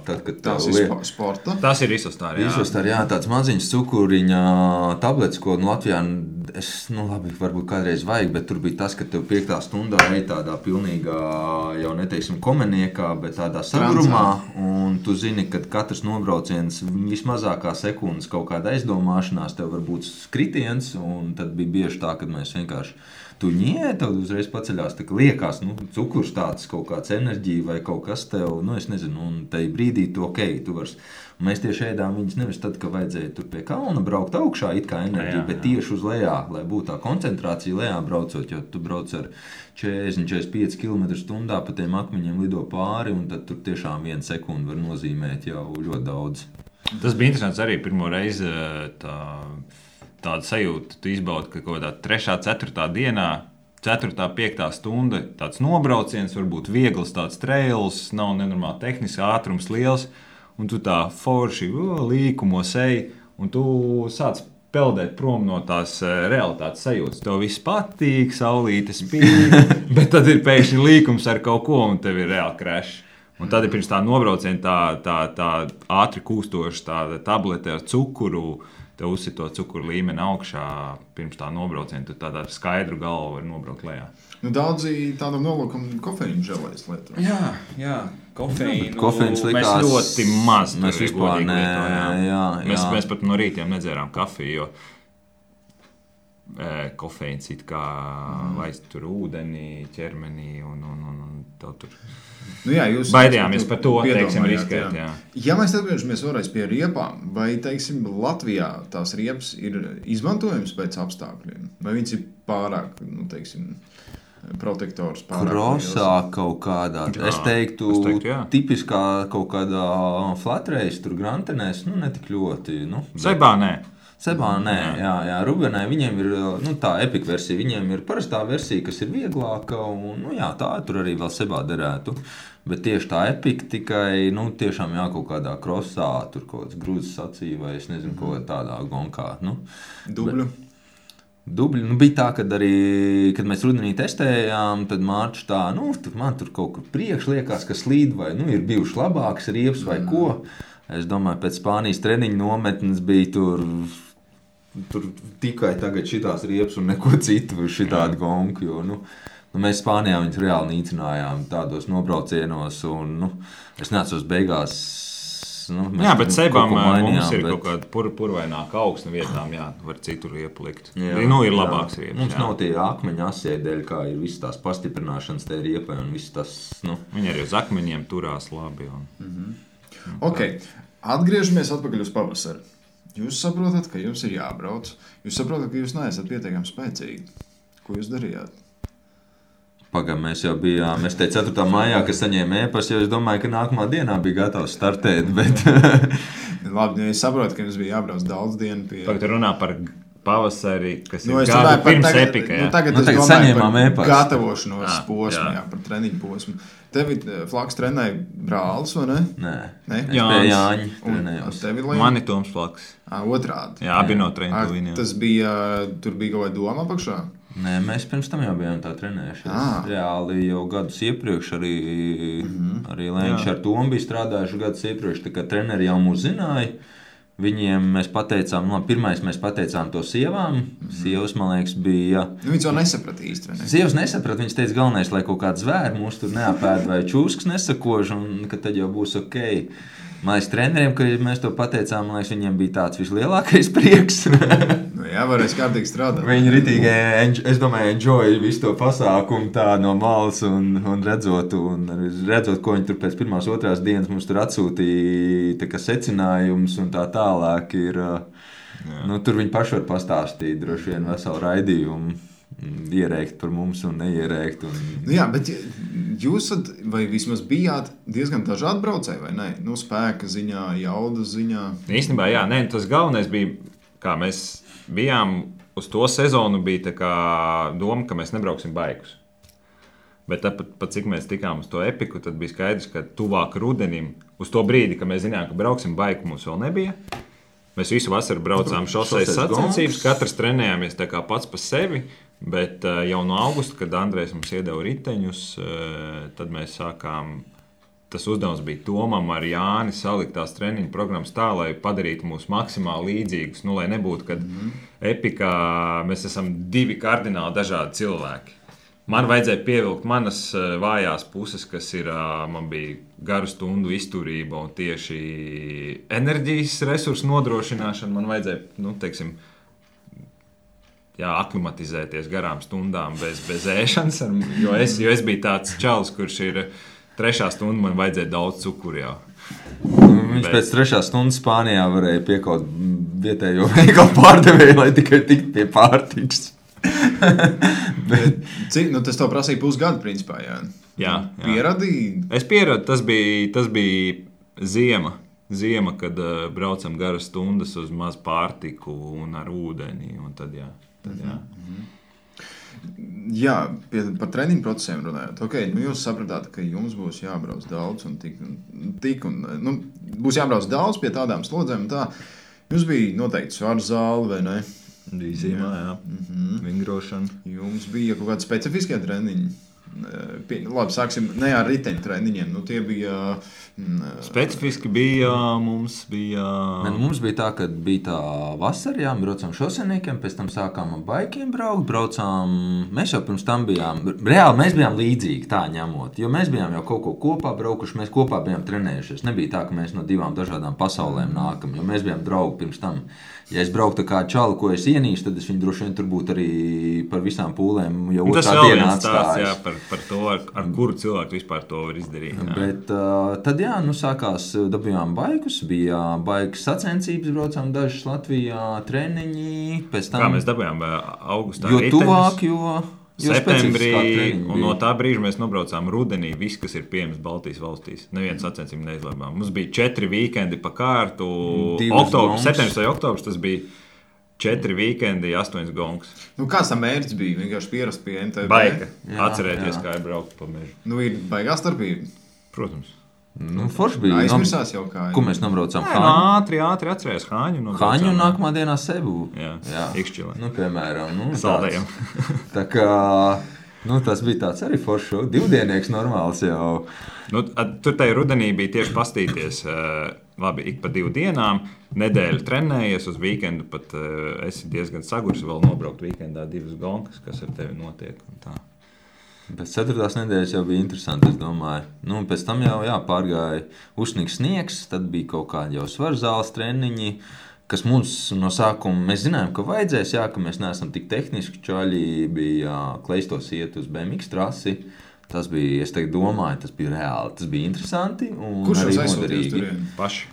Tad, kad tās ir sporta? Tas ir Isostāri, jā. Isostāri, jā, tāds maziņš cukuriņa tabletes, ko Latvijā, labi, varbūt kādreiz vajag, bet tur bija tas, ka tev 5. stundā ej tādā pilnīgā, jau neteiksim komeniekā, bet tādā sagrumā, un tu zini, ka katrs nobrauciens vismazākā sekundes kaut kāda aizdomāšanās, tev var būt skritiens, un tad bija bieži tā, kad mēs vienkārši tu tad uzreiz paceļās, tā kā liekas, cukurs tāds, kaut kāds enerģija vai kaut kas tev, es nezinu, un tai brīdī tu tu vari. Mēs tieši ēdām viņas nevis tad, ka vajadzēja tur pie kalna braukt augšā, it kā enerģija, bet tieši uz lejā, lai būtu tā koncentrācija lejā braucot, jo tu brauc ar 40-45 km/h pa tiem akmeņiem lido pāri, un tad tur tiešām 1 sekundi var nozīmēt jau ļoti daudz. Tas bija interesants arī pirmo reizi tāda sajūta, tu izbaudi, ka kaut kādā 3. 4. dienā 4. 5. stunda tāds nobrauciens, varbūt viegls tāds trails, nav nenormāli tehnisks, ātrums liels, un tu tā forši līkumos ej, un tu sāc peldēt prom no tās realitātes sajūtas. Tev viss patīk, saulīte spīd, bet tad ir pēkšņi līkums ar kaut ko, un tev ir reāli crash. Un tad ir pirms tā nobrauciena tā ātri kūstoša tāda tablete ar cukuru, tev uzsit to cukuru līmeni augšā pirms tā nobrauciena, tu tādā skaidru galvu var nobraukt lejā. Nu, daudzi tādam nolūkam kofeīnu želēs lietu. Jā, kofeīnu. Kofeīns likās... Mēs ļoti maz mēs vispār Mēs pat no rītiem nedzērām kafiju, jo kofeīns it kā laist tur ūdeni, ķermenī un tev tur... Nu jā, jūs baidījāmies par to, teiksim, riskēt. Jā. Ja mēs atgriežamies vēlreiz pie riepām, vai, teiksim, Latvijā tās riepas ir izmantojams pēc apstākļiem? Vai viņas ir pārāk, nu, teiksim, protektors pārāk? Krosā kaut kādā, es teiktu tipiskā kaut kādā flat race, tur grantenēs, nu, netik ļoti. Nu, Sebā nē, jā, Rubenē viņiem ir tā epika versija, viņiem ir parastā versija, kas ir vieglāka, un jā, tā tur arī vēl Sebā derētu. Bet tieši tā epika tikai, tiešām kaut kādā krosā, tur kaut kāds grūzes sacīja, vai es nezinu, kaut kā tādā gonkā. Dubļu? Dubļi, bija tā, kad mēs rudenī testējām, tad Mārčs tā, man tur kaut kur priekš liekas, ka slīd, vai ir bijuši labāks riepas vai ko. Es domāju, pēc Spānijas treniņu nometnes bija tur tikai tagad šitās riepas un neko citu, šitādi gonku, jo, mēs Spānijā viņus reāli nīcinājām tādos nobraucienos, un, es neatceros beigās, jā, bet Sebām mums ir kaut kāda purvaināka augsne vietām, var citur riepu likt. Ir labāks riepas. Mums nav tie akmeņa asēdēļ, kā ir visas tās pastiprināšanas te riepai, un viss tas, Viņi arī uz akmeņiem turās labi. Ok, atgriežamies atpakaļ uz pavasaru. Jūs saprotat, ka jums ir jābrauc. Jūs saprotat, ka jūs neesat pietiekami spēcīgi. Ko jūs darījāt? Pagam, mēs jau bijām, es teicu 4. maijā, ka saņēmu ēpastu, jo es domāju, ka nākamā dienā bija gatavs startēt, bet... Labi, es saprotu, ka jums bija jābrauc daudz dienu pie... Tagad runā par pavasari, kas ir gadu pirms epika. Tagad es domāju par gatavošanos posmu, par treniņu posmu. Tevi Flaks trenēja brālis, vai ne? Nē, es pie Jāņa trenējos. Mani Toms Flaks. Otrādi. Jā, abi no treniņu. Tas bija, tur bija kaut vai doma apakšā? Nē, mēs pirms tam jau bijām tā trenējušies. Reāli jau gadus iepriekš arī Lēņš ar Tomu bija strādājuši gadus iepriekš, tā kā treneri jau mūs zināja. Viņiem mēs pateicām, pirmais mēs pateicām to sievām. Sievas, man liekas, bija... Viņas jau nesaprata īsti, vai ne? Sievas nesaprata, viņas teica galvenais, lai kaut kāds zvēri mūs tur neapēd vai čūskas nesakož, un ka tad jau būs ok. Man liekas, treneriem, kad mēs to pateicām, man liekas, viņiem bija tāds vislielākais prieks. Varēs kārtīgi strādāt. Viņi ritīgi, es domāju, enjoy visu to pasākumu tā no malas un redzot, ko viņi tur pēc pirmās, otrās dienas mums tur atsūtīja, tā kā secinājums un tā tālāk ir, tur viņi paši var pastāstīt droši vien veselu raidījumu, ierēkt par mums un neierēkt. Jā, bet jūs vai vismaz bijāt diezgan dažādi braucēji, vai ne? Spēka ziņā, jaudas ziņā. Īstenībā, tas galvenais bija, kā mēs bijām uz to sezonu, bija tā kā doma, ka mēs nebrauksim baigus. Bet pat cik mēs tikām uz to epiku, tad bija skaidrs, ka tuvāk rudenim, uz to brīdi, kad mēs zinājām, ka brauksim baigu, mums vēl nebija. Mēs visu vasaru braucām šoseis sacensības, katrs trenējāmies tā kā pats pa sevi, bet jau no augusta, kad Andrejs mums iedeva riteņus, tad mēs sākām... Tas uzdevums bija Tomam ar Jāni salikt tās treniņu programmas tā, lai padarītu mūs maksimāli līdzīgus. Lai nebūtu, kad epikā mēs esam divi kardināli dažādi cilvēki. Man vajadzēja pievilkt manas vājās puses, kas ir, man bija garu stundu izturība un tieši enerģijas resursu nodrošināšana. Man vajadzēja, aklimatizēties garām stundām bez ēšanas, jo es biju tāds čalis, kurš ir... 3. stunda man vajadzēja daudz cukuru jau. Viņš pēc 3. stundas Spānijā varēja piekaut vietējo veikalu pārdevēju, lai tikai tiktu pie pārtikas. Cik, tas tev prasīja pusgadu, principā, Jā. Pieradīji? Es pieradu, tas bija ziema, kad braucam garas stundas uz maz pārtiku un ar ūdeni, un tad jā. Jā, par treniņu procesiem runājot. Okay, jūs sapratāt, ka jums būs jābrauc daudz un būs jābrauc daudz pie tādām slodzēm. Tā. Jums bija noteikti svaru zāle, vai ne? Bija zīmē, jā. Vingrošana. Jums bija kaut kādi specifiskie treniņi. Labi, sāksim ne ar riteņu treniņiem. Tie bija... Specifiski bija, mums bija... Mums bija tā, ka bija tā vasara, jā, braucām šoseniekiem, pēc tam sākām ar baikiem braucām. Mēs jau pirms tam bijām, reāli mēs bijām līdzīgi tā ņemot, jo mēs bijām jau kaut ko kopā braukuši, mēs kopā bijām trenējušies. Nebija tā, ka mēs no divām dažādām pasaulēm nākam, jo mēs bijām draugi pirms tam. Ja es brauktu kā čalu, ko es ienīstu, tad es viņu droši vien tur būtu arī par visām pūlēm jau otrā dienā atstājis. Jā, par to, ar kuru cilvēku vispār to var izdarīt. Jā. Bet tad jā, sākās, dabījām baikus, bija baigas sacensības, braucām dažas Latvijā, treniņi, pēc tam... Kā mēs dabījām augustā jo riteņus? Tuvāk, jo septembrī, un no tā brīža mēs nobraucām rudenī, viss, kas ir pieejams Baltijas valstīs. Neviens sacensību neizlēmām. Mums bija 4 vīkendi pa kārtu. Septembris vai oktobris, tas bija 4 vīkendi, 8 gongs. Kāds tam mērķis bija? Vienkārši pierast pie MTB? Baika. Atcerēties, kā ir braukt pa mežu. Ir baigā starpība? Protams. Forši bija. Aizmirsās jau kā. Ko mēs nobraucām? Ātri atcerējās Hāņu. Hāņu un nākamā dienā Sebu. Jā. Ikšķilē. Piemēram. Saldējam. Tā kā, tas bija tāds arī forši. 2-dienieks normāls jau. Tur tajā rudenī bija tieši pastīties. Labi, ik pa 2 dienām. Nedēļu trenējies uz vīkendu. Pat esi diezgan sagurs vēl nobraukt vīkendā 2 gonkas, kas ar tevi notiek. Un tā. Pēc 4. nedēļas jau bija interesanti, es domāju. Pēc tam jau pārgāja uzsnīgs sniegs, tad bija kaut kādi jau svaru zāles treniņi, kas mums no sākuma, mēs zinājām, ka vajadzēs, ka mēs neesam tik tehniski čaļi, bija kleistos iet uz BMX trasi. Tas bija, es domāju, tas bija reāli, tas bija interesanti un kurš arī noderīgi. Paši.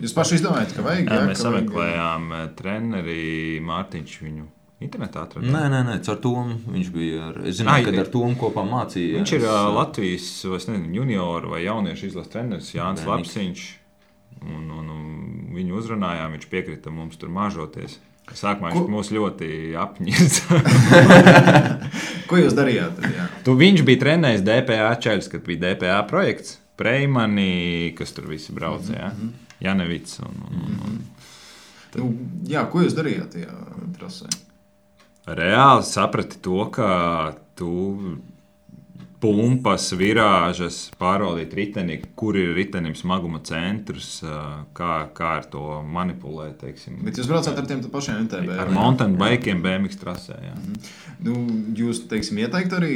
Jūs paši izdomājat, ka vajag? Jā, mēs sameklējām treneri Mārtiņš viņu. Internetā atradām? Nē, caur Tomu viņš bija. Es zināju, ka ar Tomu kopā mācīja. Viņš ir Latvijas junioru vai jauniešu izlases treneris Jānis Lapsiņš. Un viņu uzrunājām, viņš piekrita mums tur māžoties. Sākumā viņš mūs ļoti apņirds. Ko jūs darījāt? Viņš bija trenējis DPA čaļus, kad bija DPA projekts. Preimani, kas tur visi brauca, Janevits. Ko jūs darījāt tajā trasē? Reāli saprati to, ka tu pumpas, virāžas, pārvaldīt riteni, kur ir ritenim smaguma centrs, kā ar to manipulēt, teiksim. Bet jūs braucāt ar tiem pašiem MTB? Ar mountain bikiem BMX trasē, jā. Jūs, teiksim, ieteikt arī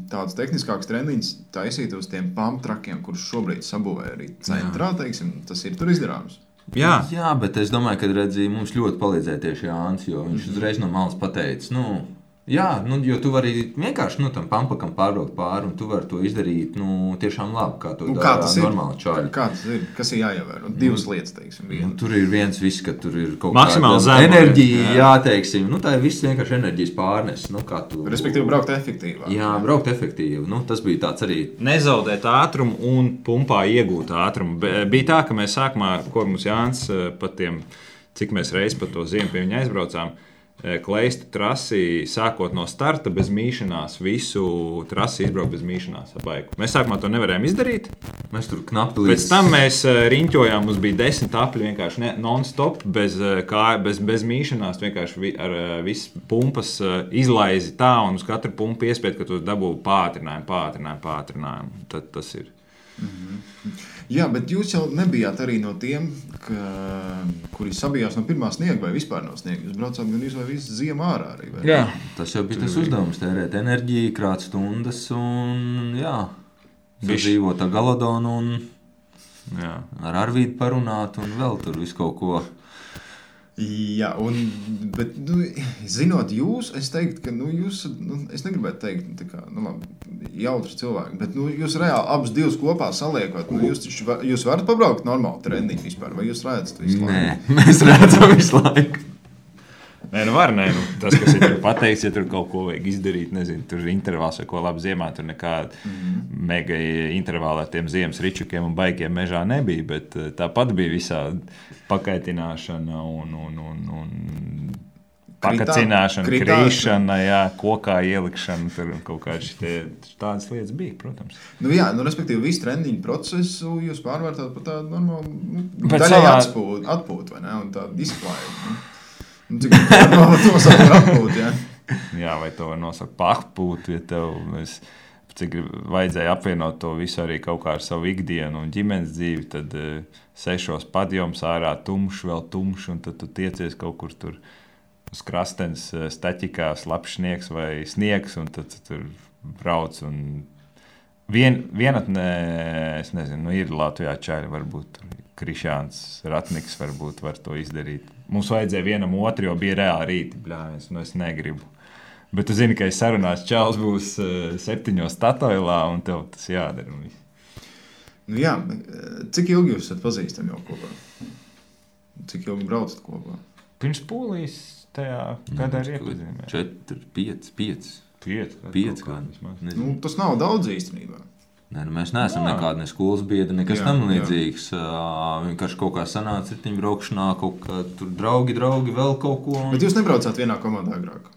tādus tehniskākus treniņus taisīt uz tiem pump trakiem, kurus šobrīd sabūvē arī centrā, teiksim, tas ir tur izdarāms? Jā, bet es domāju, ka mums ļoti palīdzēja tieši Jānis, jo viņš uzreiz no malas pateica, jo tu vari vienkārši tam pampakam pārbraukt pāri, un tu vari to izdarīt tiešām labi, kā to dara normāli čaļi. Kā tas ir? Kas ir jāievēro? 2 lietas, teiksim. Tur ir viens viss, ka tur ir kaut kāda enerģija, teiksim. Tā ir viss vienkārši enerģijas pārnes. Respektīvi, braukt efektīvāk. Jā, braukt efektīvi. Tas bija tāds arī. Nezaudēt ātrumu un pumpā iegūt ātrumu. Bija tā, ka mēs sākumā, ko mums Jānis pat tiem, cik mēs reiz pa to ziemu pie viņa aizbraucām, kleistu trasi, sākot no starta bez mīšanās, visu trasi izbraukt bez mīšanās ar baiku. Mēs sākumā to nevarējām izdarīt. Mēs tur knapi līdz... Pēc tam mēs riņķojām, mums bija 10 apļi vienkārši non-stop, bez mīšanās, vienkārši ar visu pumpas izlaizi tā, un uz katru pumpu iespēt, ka tu dabū pātrinājumu. Tad tas ir. Jā, bet jūs jau nebijāt arī no tiem, kuri sabijās no pirmā sniega vai vispār no sniega. Jūs braucāt gan vai visu ziemu ārā arī. Vai? Jā, tas jau bija tas uzdevums, tērēt enerģiju, krāt stundas un sadzīvot ar Galodonu un ar Arvīdu parunāt un vēl tur visu kaut ko. Jā, bet zinot jūs, es teiktu, ka jūs, es negribētu teikt, tā kā, jautri cilvēki, bet jūs reāli abus divus kopā saliekot, jūs varat pabraukt normāli treniņu vispār, vai jūs redzat visu laiku? Nē, mēs redzam visu laiku. Nē, tas, kas ir tur pateikts, ja tur kaut ko vajag izdarīt, nezinu, tur intervāls vai ko labi ziemā, tur nekāda mega intervāla ar tiem ziemas ričukiem un baikiem mežā nebija, bet tāpat bija visā pakaitināšana un pakacināšana, krīšana, jā, kokā ielikšana, tur kaut kādas tādas lietas bija, protams. Jā, respektīvi, visu treniņu procesu jūs pārvērtāt par tādu normālu, daļai atpūtu, vai ne, un tādu izklājumu. Cik to nosaukt par atpūtu, jā? Jā, vai to var nosaukt par atpūtu, ja tev cik vajadzēja apvienot to visu arī kaut kā ar savu ikdienu un ģimenes dzīvi, tad 6 padjoms ārā tumšs, vēl tumšs, un tad tu tiecies kaut kur tur uz krastenes staķikā, slapjš sniegs vai sniegs, un tad tur brauc. Un vienatnē, es nezinu, ir Latvijā čaļi, varbūt Krišāns Ratniks varbūt var to izdarīt. Mums vajadzēja vienam otru, jo bija reāli rīti, bļāviens, es negribu. Bet tu zini, ka es sarunās čals būs 7 Statoilā, un tev tas jādara. Jā, cik ilgi jūs esat pazīstami jau kopā? Cik ilgi braucat kopā? Pirms Polijas tajā gadā ir iepazīmē. 4, 5 gadi. Tas nav daudz īstenībā. Nē, mēs neesam nekādi ne skolas biedri, nekas tam līdzīgs. Vienkārši kaut kā sanāca ritiņu braukšanā, kaut kā tur draugi, vēl kaut ko. Bet jūs nebraucāt vienā komandā agrāk?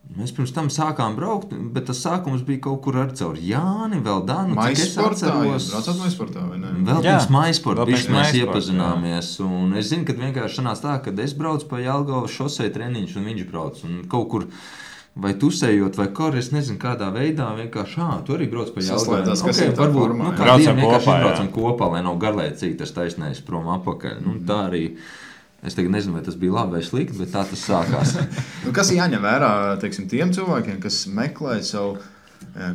Mēs pirms tam sākām braukt, bet tas sākums bija kaut kur ar caur Jāni, vēl Danu. Maisportā, jūs braucāt Maisportā, vai ne? Vēl pirms Maisporta, mēs iepazināmies. Un es zinu, ka vienkārši sanāca tā, ka es braucu pa Jelgavas šosei treniņš, un viņš brauc. Un kaut kur vai tusējot, vai kor, es nezinu, kādā veidā vienkārši, tu arī brauc pa Jelgavas. Okay, varbūt, braucam kopā, lai nav garlaicīgi tas taisnējis prom apakaļ. Tā arī... Es tagad nezinu, vai tas bija labi vai slikti, bet tā tas sākās. Kas jāņem vērā, teiksim, tiem cilvēkiem, kas meklē savu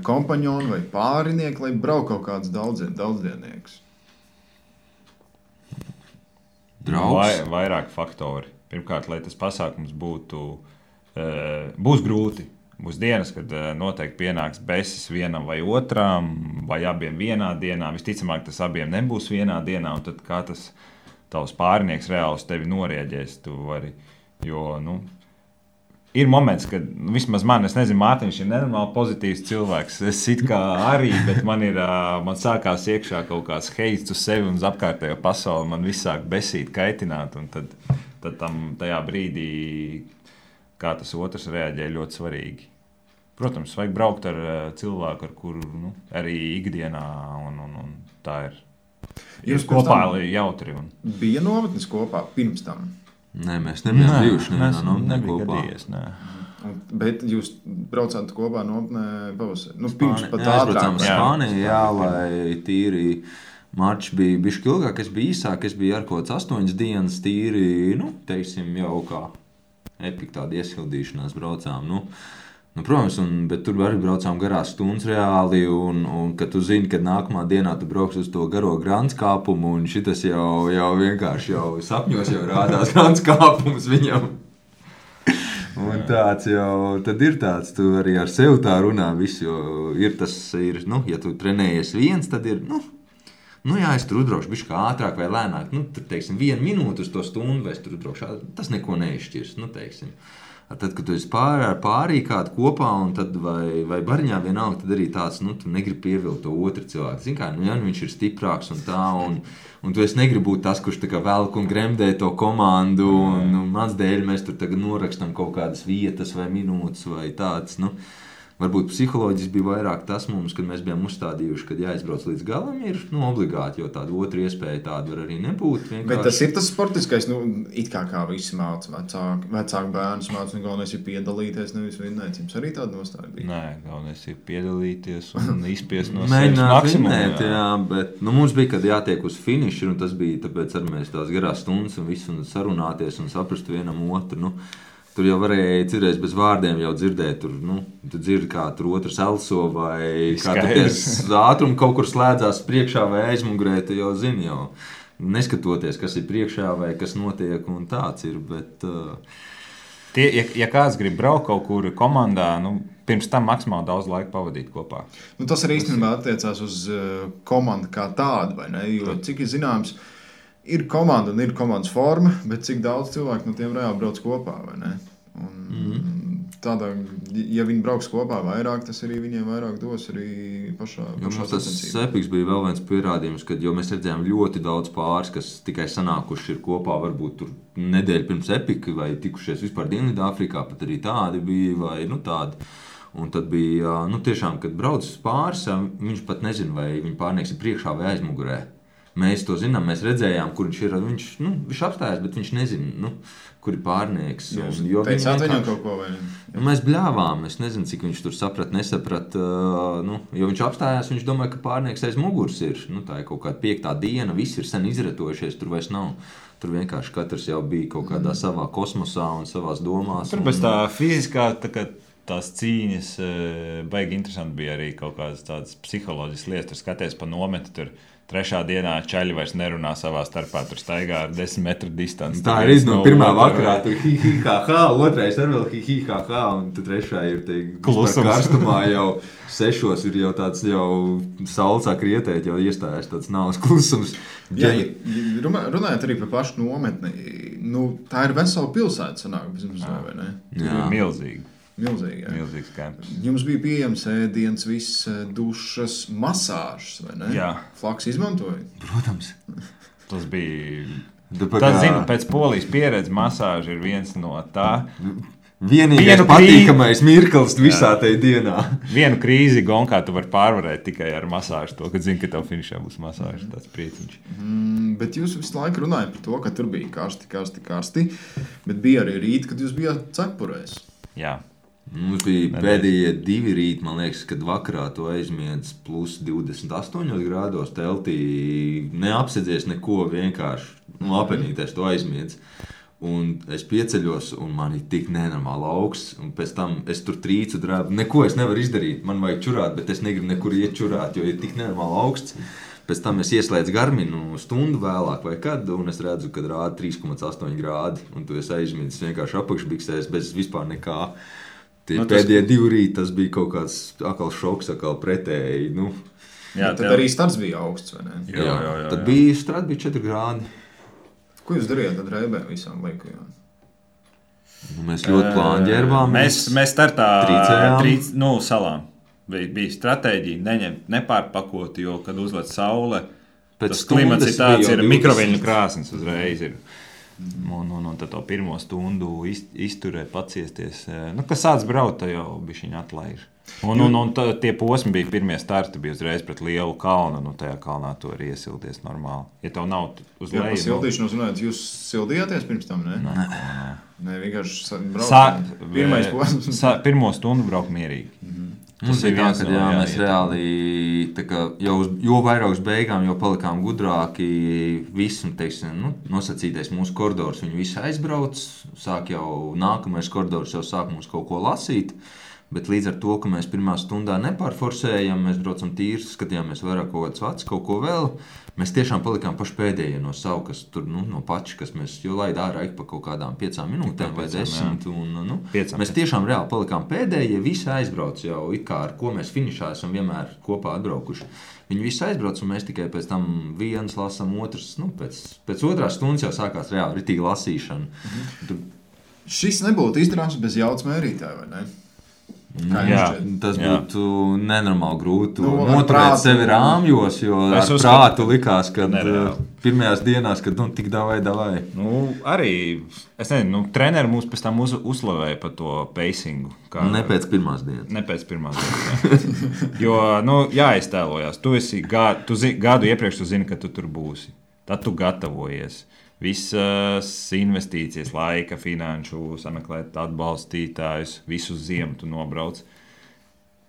kompaņonu vai pārinieku, lai brauc kaut kāds daudzdiennieks? Draugs? Vairāk faktori. Pirmkārt, lai tas pasākums būs grūti. Būs dienas, kad noteikti pienāks besis vienam vai otram, vai abiem vienā dienā. Visticamāk, tas abiem nebūs vienā dienā, un tad kā tas tavs pārinieks reāli uz tevi norieģēs. Ir moments, kad vismaz man, es nezinu, Mārtiņš ir nenormāli pozitīvs cilvēks. Es it kā arī, bet man sākās iekšā kaut kāds heits uz sevi un uz apkārtējo pasauli. Man viss sāk besīt, kaitināt, un tad tajā brīdī, kā tas otrs reaģē, ļoti svarīgi. Protams, vajag braukt ar cilvēku, ar kuru arī ikdienā, un tā ir. Jūs kopā jautri. Bija nometnes kopā pirms tam? Nē, mēs nebijām bijuši. Nebija gadījies, nē. Bet jūs braucāt kopā nometnē pavasarī? Pirms pat ātrāk. Spānijā, lai tīri marči bija bišķi ilgāk, es biju īsāk, es biju ar kaut 8 dienas tīri, teiksim, jau kā epika tāda iesildīšanās braucām, protams, bet tur arī braucām garās stundas reāli, un kad tu zini, ka nākamā dienā tu brauks uz to garo grants kāpumu, un šitas jau vienkārši sapņos jau rādās grants kāpums viņam. Un tāds jau, tad ir tāds, tu arī ar sevi tā runā visu, jo ja tu trenējies viens, tad ir, es tur uzbraukšu bišķi kā ātrāk vai lēnāk, tur, teiksim, 1 minūte uz to stundu, vai es tur uzbraukšu, tas neko neizšķirs, teiksim. Tad, kad tu esi pārī kādu kopā, un tad vai bariņā vienalga, tad arī tāds, tu negribi pievilkt to otru cilvēku. Zini kā, viņš ir stiprāks un tā, un tu esi negribi būt tas, kurš tā kā velk un gremdē to komandu, un mans dēļ mēs tur tagad norakstam kaut kādas vietas vai minūtes vai tāds, Varbūt psiholoģiski bija vairāk tas mums, kad mēs bijām uzstādījuši, kad jāizbrauc līdz galam, ir obligāti, jo tāda otra iespēja tāda var arī nebūt. Vienkārši. Bet tas ir tas sportiskais, it kā visi māca, vecāki bērnus māca, galvenais ir piedalīties, nevis vinnēt. Jums arī tāda nostāja bija? Nē, galvenais ir piedalīties un izspiest no sevis maksimumu. Jā, bet mums bija, kad jātiek uz finišu, un tas bija tāpēc arī mēs tās garās stundas un visu un sarunāties un saprast vienam otru. Tur jau varēja cirēs bez vārdiem jau dzirdēt, tu dzirdi, kā tur otrs elso vai kā tu ties ātrumu kaut kur slēdzās priekšā vai aizmugurē, tu jau zini jau, neskatoties, kas ir priekšā vai kas notiek un tāds ir, bet... Ja kāds grib braukt kaut kur komandā, pirms tam maksimāli daudz laika pavadīt kopā. Tas arī īstenībā attiecās uz komandu kā tādu, vai ne? Jo, cik ir zināms, ir komanda un ir komandas forma, bet cik daudz cilvēku no tiem reāli brauc kopā, vai ne? tādā, ja viņi brauks kopā vairāk, tas arī viņiem vairāk dos arī pašā Tas epiks bija vēl viens pierādījums, kad mēs redzējām ļoti daudz pāris, kas tikai sanākuši ir kopā, varbūt tur nedēļu pirms epika, vai tikušies vispār Dienvidāfrikā, pat arī tādi bija, vai tādi. Un tad bija, tiešām, kad brauc pāris, viņš pat nezina, vai viņa pārnieks ir priekšā vai aizmugurē. Mēs to zinām, mēs redzējām, kur viņš ir. Viņš apstājās, bet viņš nezina, kur ir pārnieks. Jūs teicāt viņam kaut ko vai ne? Mēs bļāvām, es nezinu, cik viņš tur nesaprat. Jo viņš apstājās, viņš domāja, ka pārnieks aiz muguras ir. Tā ir kaut kāda 5. diena, visi ir sen izretojušies, tur vairs nav. Tur vienkārši katrs jau bija kaut kādā savā kosmosā un savās domās. Tur bez tā fiziskā, tās cīņas baigi interesanti bija arī kaut kādas tādas psiholoģiskas lietas. Tur skaties pa nometu, tur 3. dienā čaļi vairs nerunā savā starpā, tur staigā ar 10 metru distanci. Tā ir no pirmā vakarā, tur hi-hi-ha-ha, otrais ar vēl hi-hi-ha-ha, un tad 3. ir klusums. Karstumā jau 6 ir jau tāds jau saules sāk rietēt, jau iestājās tāds nāves klusums. Runājot arī par pašu nometni, tā ir vesela pilsēta sanāk, vai ne? Jā, milzīgi. Milzīgs kampus. Jums bija pieejams ēdiens, viss dušas, masāžas, vai ne? Jā. Flaks izmantoja? Protams. Tas bija... zinu, pēc Polijas pieredzes masāža ir viens no tā. Vienīgais patīkamais mirklis visā tajā dienā. Vienu krīzi gonkā tu vari pārvarēt tikai ar masāžu to, kad zini, ka tev finišā būs masāža, tāds prieciņš. Bet jūs visu laiku runājat par to, ka tur bija karsti, bet bija arī rīti, kad jūs bijāt cepurēs. Jā. Mums bija pēdējie 2 rīti, man liekas, kad vakarā to aizmiedz plus 28 grādos teltī. Neapsedzies neko, vienkārši apenīties to aizmiedz. Un es pieceļos, un man ir tik nenormāli augsts. Un pēc tam es tur trīcu drābu. Neko es nevaru izdarīt. Man vajag čurāt, bet es negribu nekur iet čurāt, jo ir tik nenormāli augsts. Pēc tam es ieslēdzu Garminu stundu vēlāk vai kad, un es redzu, kad rāda 3,8 grādi. Un tu esi aizmiedzis vienkārši apakšbiksēs bez vispār nekā. Pēdējie 2 rīti tas bija kaut kāds atkal šoks, atkal pretēji. Jā, tad arī starts bija augsts, vai ne? Jā. Tad bija strats bija 4 grādi. Ko jūs darījāt tad Reibē visām laikajām? Mēs ļoti plāni ģērbām. Mēs startā salām. Bija stratēģija nepārpakot, jo, kad uzlec saule, tas klimats ir tāds, ir mikroviļņu krāsnes uzreiz ir. Un tad to 1 stundu izturēt, paciesties. Kas sāc braukt, tad jau bišķiņ atlaiž. Un tie posmi bija pirmie starti, bija uzreiz pret lielu kalnu. Tajā kalnā tu vari iesilties normāli. Ja tev nav uz leju... Sildīšanos runājot, jūs sildījāties pirms tam, ne? Nē, vienkārši braukt. Pirmais posms. 1 stundu braukt mierīgi. Mums bija tā, ka mēs reāli, jo vairāk uz beigām, jo palikām gudrāki, visu, nosacītais mūsu koridors, viņi visi aizbrauc, sāk jau nākamais koridors jau sāk mums kaut ko lasīt, bet līdz ar to, ka mēs 1. stundā nepārforsējam, mēs braucam tīri, skatījāmies vairāk kaut kāds vats, kaut ko vēl, mēs tiešām palikām paši pēdējie no savu, kas tur, no pači, kas mēs jau laid ārā pa kaut kādām 5 minūtēm vai 10, un mēs tiešām reāli palikām pēdējie, visi aizbrauc jau, it kā ar ko mēs finišā esam vienmēr kopā atbraukuši. Viņi visi aizbrauc, un mēs tikai pēc tam viens lasam, otrs, pēc 2. stundas jau sākās reāli ritīgi lasīšana. Šis nebūtu izdarāms bez jaudas mērītāja, vai ne? Tas būtu nenormāli grūti noturēt sevi rāmjos, jo ar prātu likās, ka pirmajās dienās, kad tik davai. Arī, es nezinu, treneri mūs pēc tam uzslavēja par to pacingu. Ne pēc pirmās dienas. Ne pēc pirmās dienas, jā. Jo, jāiztēlojās. Tu gadu iepriekš tu zini, ka tu tur būsi. Tad tu gatavojies. Visas investīcijas, laika, finanšu, sameklēt atbalstītājus, visu ziemu tu nobrauc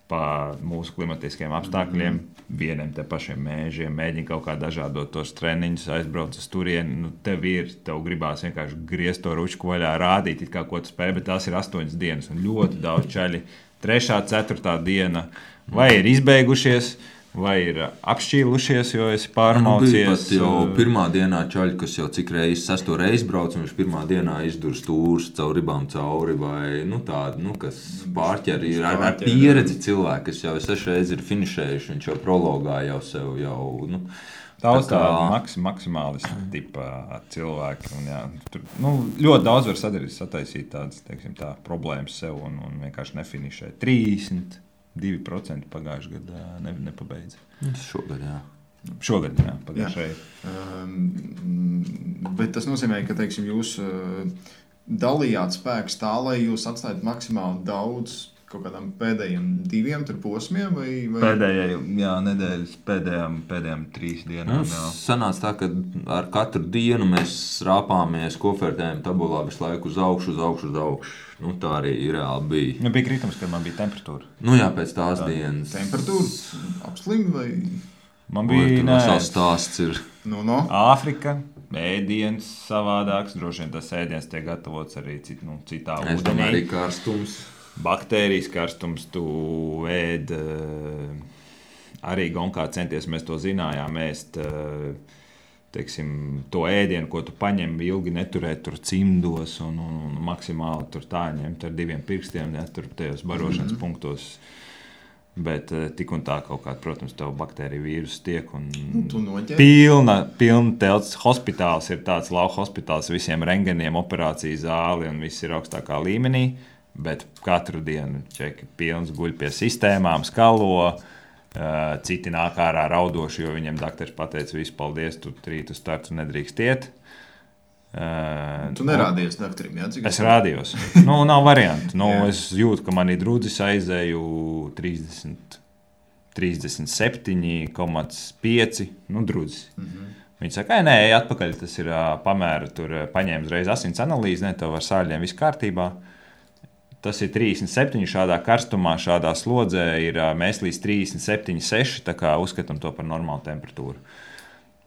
pa mūsu klimatiskiem apstākļiem, vieniem te pašiem mēžiem, mēģini kaut kā dažādot tos treniņus, aizbrauc uz turieni, tev gribās vienkārši griezt to ručku vaļā, rādīt, it kā ko tu spēj, bet tās ir 8 dienas un ļoti daudz čaļi. 3., 4. diena vai ir izbeigušies, vai ir apšķīlušies, jo esi pārmaucies. Bija pat jau 1. dienā čaļi, kas jau cik reizes 6. reizi brauc, un viņš 1. dienā izdur stūrus caur ribām cauri, vai tādi, kas pārķer ir ar pieredzi cilvēki, kas jau 6 reizes ir finišējuši, viņš jau prologā jau sev Daudz tādu maksimālistu tipa cilvēki. Un, jā, tur ļoti daudz var sataisīt tādas problēmas sev un vienkārši nefinišē. 32% pagājušajā gadā nepabeidza. Šogad, jā. Šogad, jā, pagājušajā. Bet tas nozīmē, ka, teiksim, jūs dalījāt spēkus tā, lai jūs atstājat maksimāli daudz kaut kādām pēdējiem 2 posmiem? Vai... Nedēļas pēdējām 3 dienām. Sanāca tā, ka ar katru dienu mēs rāpāmies, kofertējam tabulā visu laiku uz augšu. Tā arī reāli bija. Bija kritums, kad man bija temperatūra. Jā, pēc tās dienas. Temperatūra apslim vai? Man bija stāsts ir. Āfrika, ēdiens savādāks. Droši vien tas ēdiens tiek gatavots arī citā ūdenī. Arī karstums. Baktērijas karstums, tu ēd, arī Gonkā centies, mēs to zinājām, ēst, to ēdienu, ko tu paņem, ilgi neturēt tur cimdos un maksimāli tur tā ņemt ar 2 pirkstiem, tur tajos barošanas punktos. Bet tik un tā kaut kāda, protams, tev baktērija vīrusu tiek un pilna telts hospitāls ir tāds lauka hospitāls, visiem rengeniem, operāciju zāli un viss ir augstākā līmenī. Bet katru dienu čeki pilns guļ pie sistēmām, skalo, citi nāk ārā raudoši, jo viņiem dakteris pateica, visu paldies, tu rīt uz startu nedrīkst iet. Tu nerādies dakterim, jā? Es rādījos. Nav variantu. Es jūtu, ka manī drudzis aizēju 37,5 drudzis. Viņi saka, nē, atpakaļ, tas ir pamēra, tur paņēma uzreiz asins analīzi, tev ar sāļiem viss kārtībā. Tas ir 37 šādā karstumā, šādā slodzē ir mēs līdz 37,6, tā kā uzskatām to par normālu temperatūru.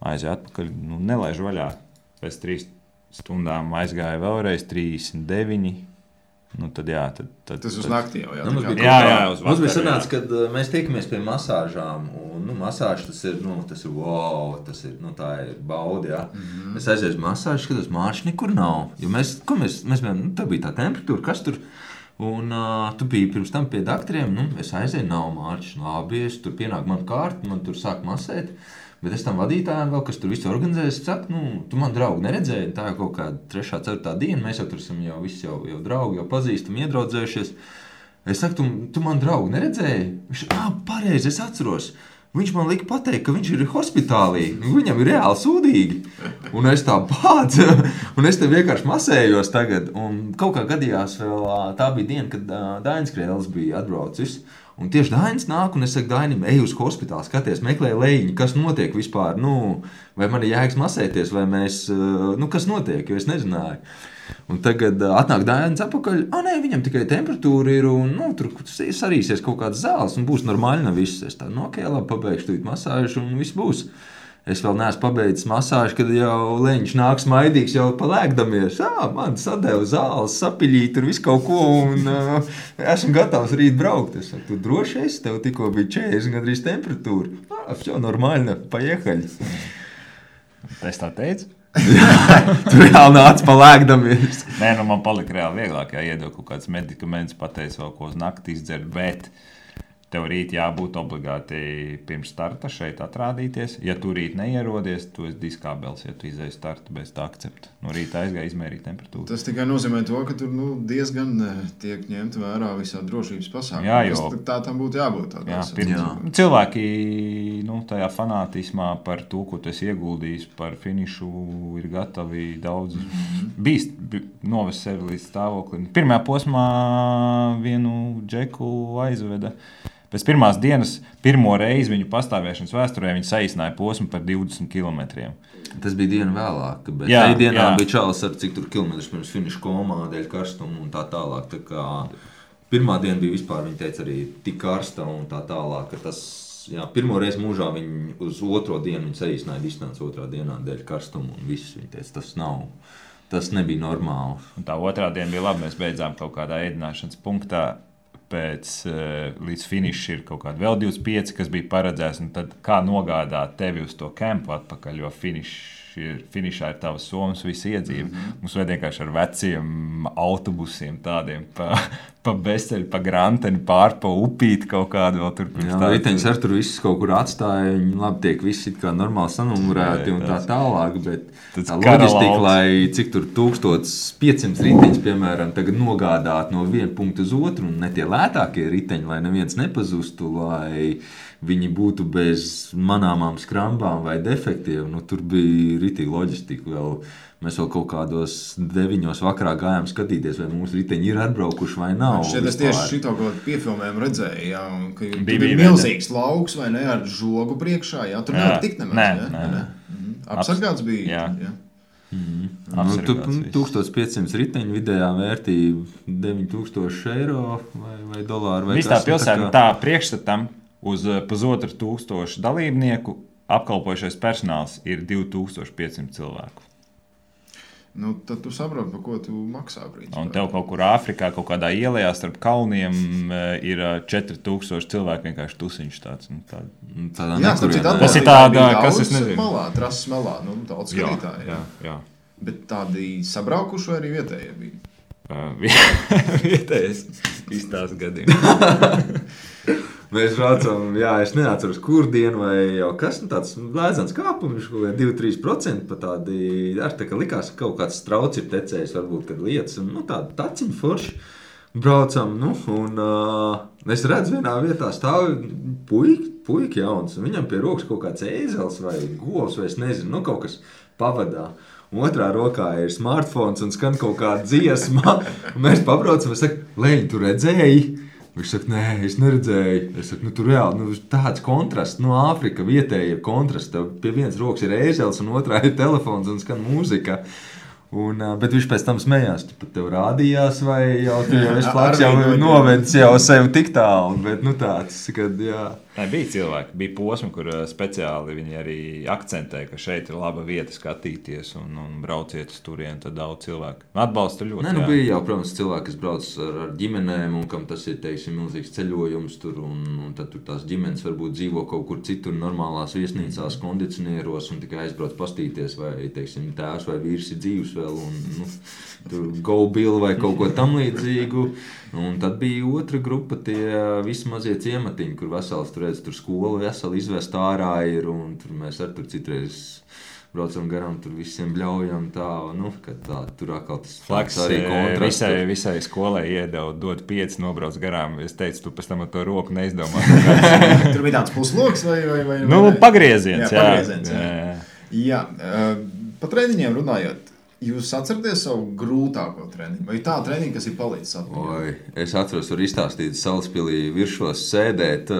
Aizēju atpakaļ, nelaižu vaļā. Pēc 3 stundām aizgāja vēlreiz 39. Tad jā. Tas uz nakti jau, jā. Mums bija sanāca, kad mēs tiekamies pie masāžām, un masāža tas ir wow, tā ir baudi, jā. Es aizēju uz masāžu, skatos, Mārķis nekur nav. Jo mēs bijām, tā bija tā temperatūra, kas tur... Un tu biji pirms tam pie dakteriem, es aizēju, nav Mārķis, labi, es tur pienāk man kārta, man tur sāk masēt, bet es tam vadītājiem vēl, kas tur visu organizējas, saku, tu man draugu neredzēji, tā ir kaut kāda 3. 4. diena, mēs jau tur esam jau draugi, jau pazīstam, iedraudzējušies. Es saku, tu man draugu neredzēji? Viņš, pareizi, es atceros. Viņš man lika pateikt, ka viņš ir hospitālī, viņam ir reāli sūdīgi. Un es tā bādzu, un es te vienkārši masējos tagad. Un kaut kā gadījās vēl, tā bija diena, kad Dainis Krēls bija atbraucis. Un tieši Dainis nāk, un es saku Dainim, ej uz hospitāli, skaties, meklē lejiņu, kas notiek vispār, vai man ir jēgas masēties, vai mēs, kas notiek, jo es nezināju. Un tagad atnāk Dainis atpakaļ, nē, viņam tikai temperatūra ir, un tur sarīsies kaut kāds zāles, un būs normāli nav viss. Es tā, ok, labi, pabeigšu tūlīt masāžu, un viss būs. Es vēl neesmu pabeidzis masāžu, kad jau leņķis nāk smaidīgs, jau palēkdamies. Man sadeva zāles, sapiļīt, tur visu kaut ko, un esmu gatavs rīt braukt. Es saku, tu droši esi, tev tikko bija 40 gandrīz temperatūra. Все нормально, поехали. Es tā teicu? Tur reāli nāca palēkdamies. Nē, man palika reāli vieglāk, iedod kaut kāds medikaments, pateicu vēl ko uz nakti izdzert, bet tev rīt jābūt obligāti pirms starta šeit atrādīties. Ja tu rīt neierodies, tu esi diskābels, ja tu izēji startu bez tā akcepta. Rītā aizgāja izmērīt temperatūru. Tas tikai nozīmē to, ka tur diezgan tiek ņemt vērā visā drošības pasākumā. Jā, jo tā tam būtu jābūt. Cilvēki tajā fanātismā par to, ko tu esi ieguldījis par finišu, ir gatavi daudz bīst, novest sevi līdz stāvoklim. Pirmajā posmā vienu džeku aizveda. Pēc pirmās dienas, pirmo reizi viņu pastāvēšanas vēsturē, viņi saīsināja posmu par 20 kilometriem. Tas bija diena vēlāk, bet tajā dienā bija čalis ar cik tur kilometrus pirms finiša komā, dēļ karstuma un tā tālāk. Tā kā pirmā diena bija vispār, viņi teica, arī tik karsta un tā tālāk, ka tas, pirmo reizi mūžā viņi uz otro dienu viņi saīsināja distanci otrā dienā dēļ karstuma un viss. Viņi teica, tas nebija normāli. Un tā otrā diena bija labi, mēs beidzām kaut kādā ēdināšanas punktā. Līdz finiša ir kaut kāda vēl 25, kas bija paredzēts, un tad kā nogādāt tevi uz to kempu atpakaļ, jo finišs finišā ir tavas somas, visa iedzīve. Mums vajag vienkārši ar veciem autobusiem tādiem pa Besteļu, pa Granteni, pārpa upīt kaut kādu vēl tur. Jā, riteņus ar tur visus kaut kur atstāja, viņi labi tiek visi it kā normāli sanumurēti un tā tālāk, bet tā loģistika, lai cik tur 1500 riteņus, piemēram, tagad nogādāt no viena punkta uz otru, un ne tie lētākie riteņi, lai neviens nepazustu, lai viņi būtu bez manāmām skrambām vai defektiem, nu tur bija ritīgi loģistika vēl. Mēs vēl kaut kādos 9 vakarā gājām skatīties, vai mūsu riteņi ir atbraukuši vai nav. Šeit es tieši šito kaut kādu piefilmējumu redzēju, jā, ka bija milzīgs lauks vai ne, ar žogu priekšā, jā, tur nevar tikt nemaz, jā. Apsargāts bija, jā. Nu, 1500 riteņu vidējā vērtība 9000 eiro vai dolāru vai kas. Visā pilsētā tā priekšstatam uz 1500 dalībnieku apkalpojušais personāls ir 2500 cilvēku. Nu, tad tu saproti, par ko tu maksā brīdī. Un tev kaut kur Āfrikā, kaut kādā ielā starp kalniem ir 4000 cilvēku vienkārši tusiņš tāds. Tas ir tāda, kas es nezinu. Malā, trases malā, nu, daudz skatītāji. Jā. Bet tādi sabraukuši vai arī vietējie bija? Vietējais izstāsts gadījumā. Mēs braucam, es neatceros, kur dienu vai jau kas, tāds lēzans kāpums, 2-3% pa tādi, tā kā likās, ka kaut kāds strauts ir tecējis, varbūt, kad lietas, un tādi taciņi forši. Braucam, un es redzu vienā vietā stāv puika jauns, un viņam pie rokas kaut kāds ēzels vai govs, vai es nezinu, kaut kas pavadā. Otrā rokā ir smartphones un skan kaut kāda dziesma, un mēs pabraucam, es saku, Leņ, tu redzēji? Viņš saka, nē, es neredzēju. Es saku, tu reāli, tāds kontrasts, Āfrika vietēji ir kontrasts. Tev pie vienas rokas ir ēzels un otrā ir telefons un skan mūzika. Bet viņš pēc tam smējās, tu pat tev rādījās vai jau esi plaks, jau novedis jau sev tik tālu. Bet tāds, kad jā. Bija cilvēki, bija posmi, kur speciāli viņi arī akcentēja, ka šeit ir laba vieta skatīties un brauciet uz turieni, tad daudz cilvēku. Atbalsta ļoti. Bija jau, protams, cilvēki, kas brauc ar ģimenēm un kam tas ir, teiksim, milzīgs ceļojums tur un tad tur tās ģimenes varbūt dzīvo kaut kur citur normālās viesnīcās, kondicionieros un tikai aizbrauc pastīties vai, teiksim, tēvs vai vīrs ir dzīvs vēl un tur go bill vai kaut ko tam līdzīgu. Un tad bija otra grupa, tie visi mazie ciematiņi, kur vesels tur skola veseli izvest ārā ir, un tur mēs tur citreiz braucam garām, tur visiem bļaujam tā, kad tā, tur atkal tas flaks arī kontrasts. Visai skolai iedeva dot 5, nobrauc garām. Es teicu, tu pēc tam ar to roku neizdomā. Tur bija tāds pusloks vai? Pagrieziens, jā. Pagrieziens, jā. Pa treniņiem runājot, jūs atceraties savu grūtāko treniņu? Vai tā treniņa, kas ir palicis atmiņā? Es atceros, var izstāstīt Salaspilī viršos sēdēt.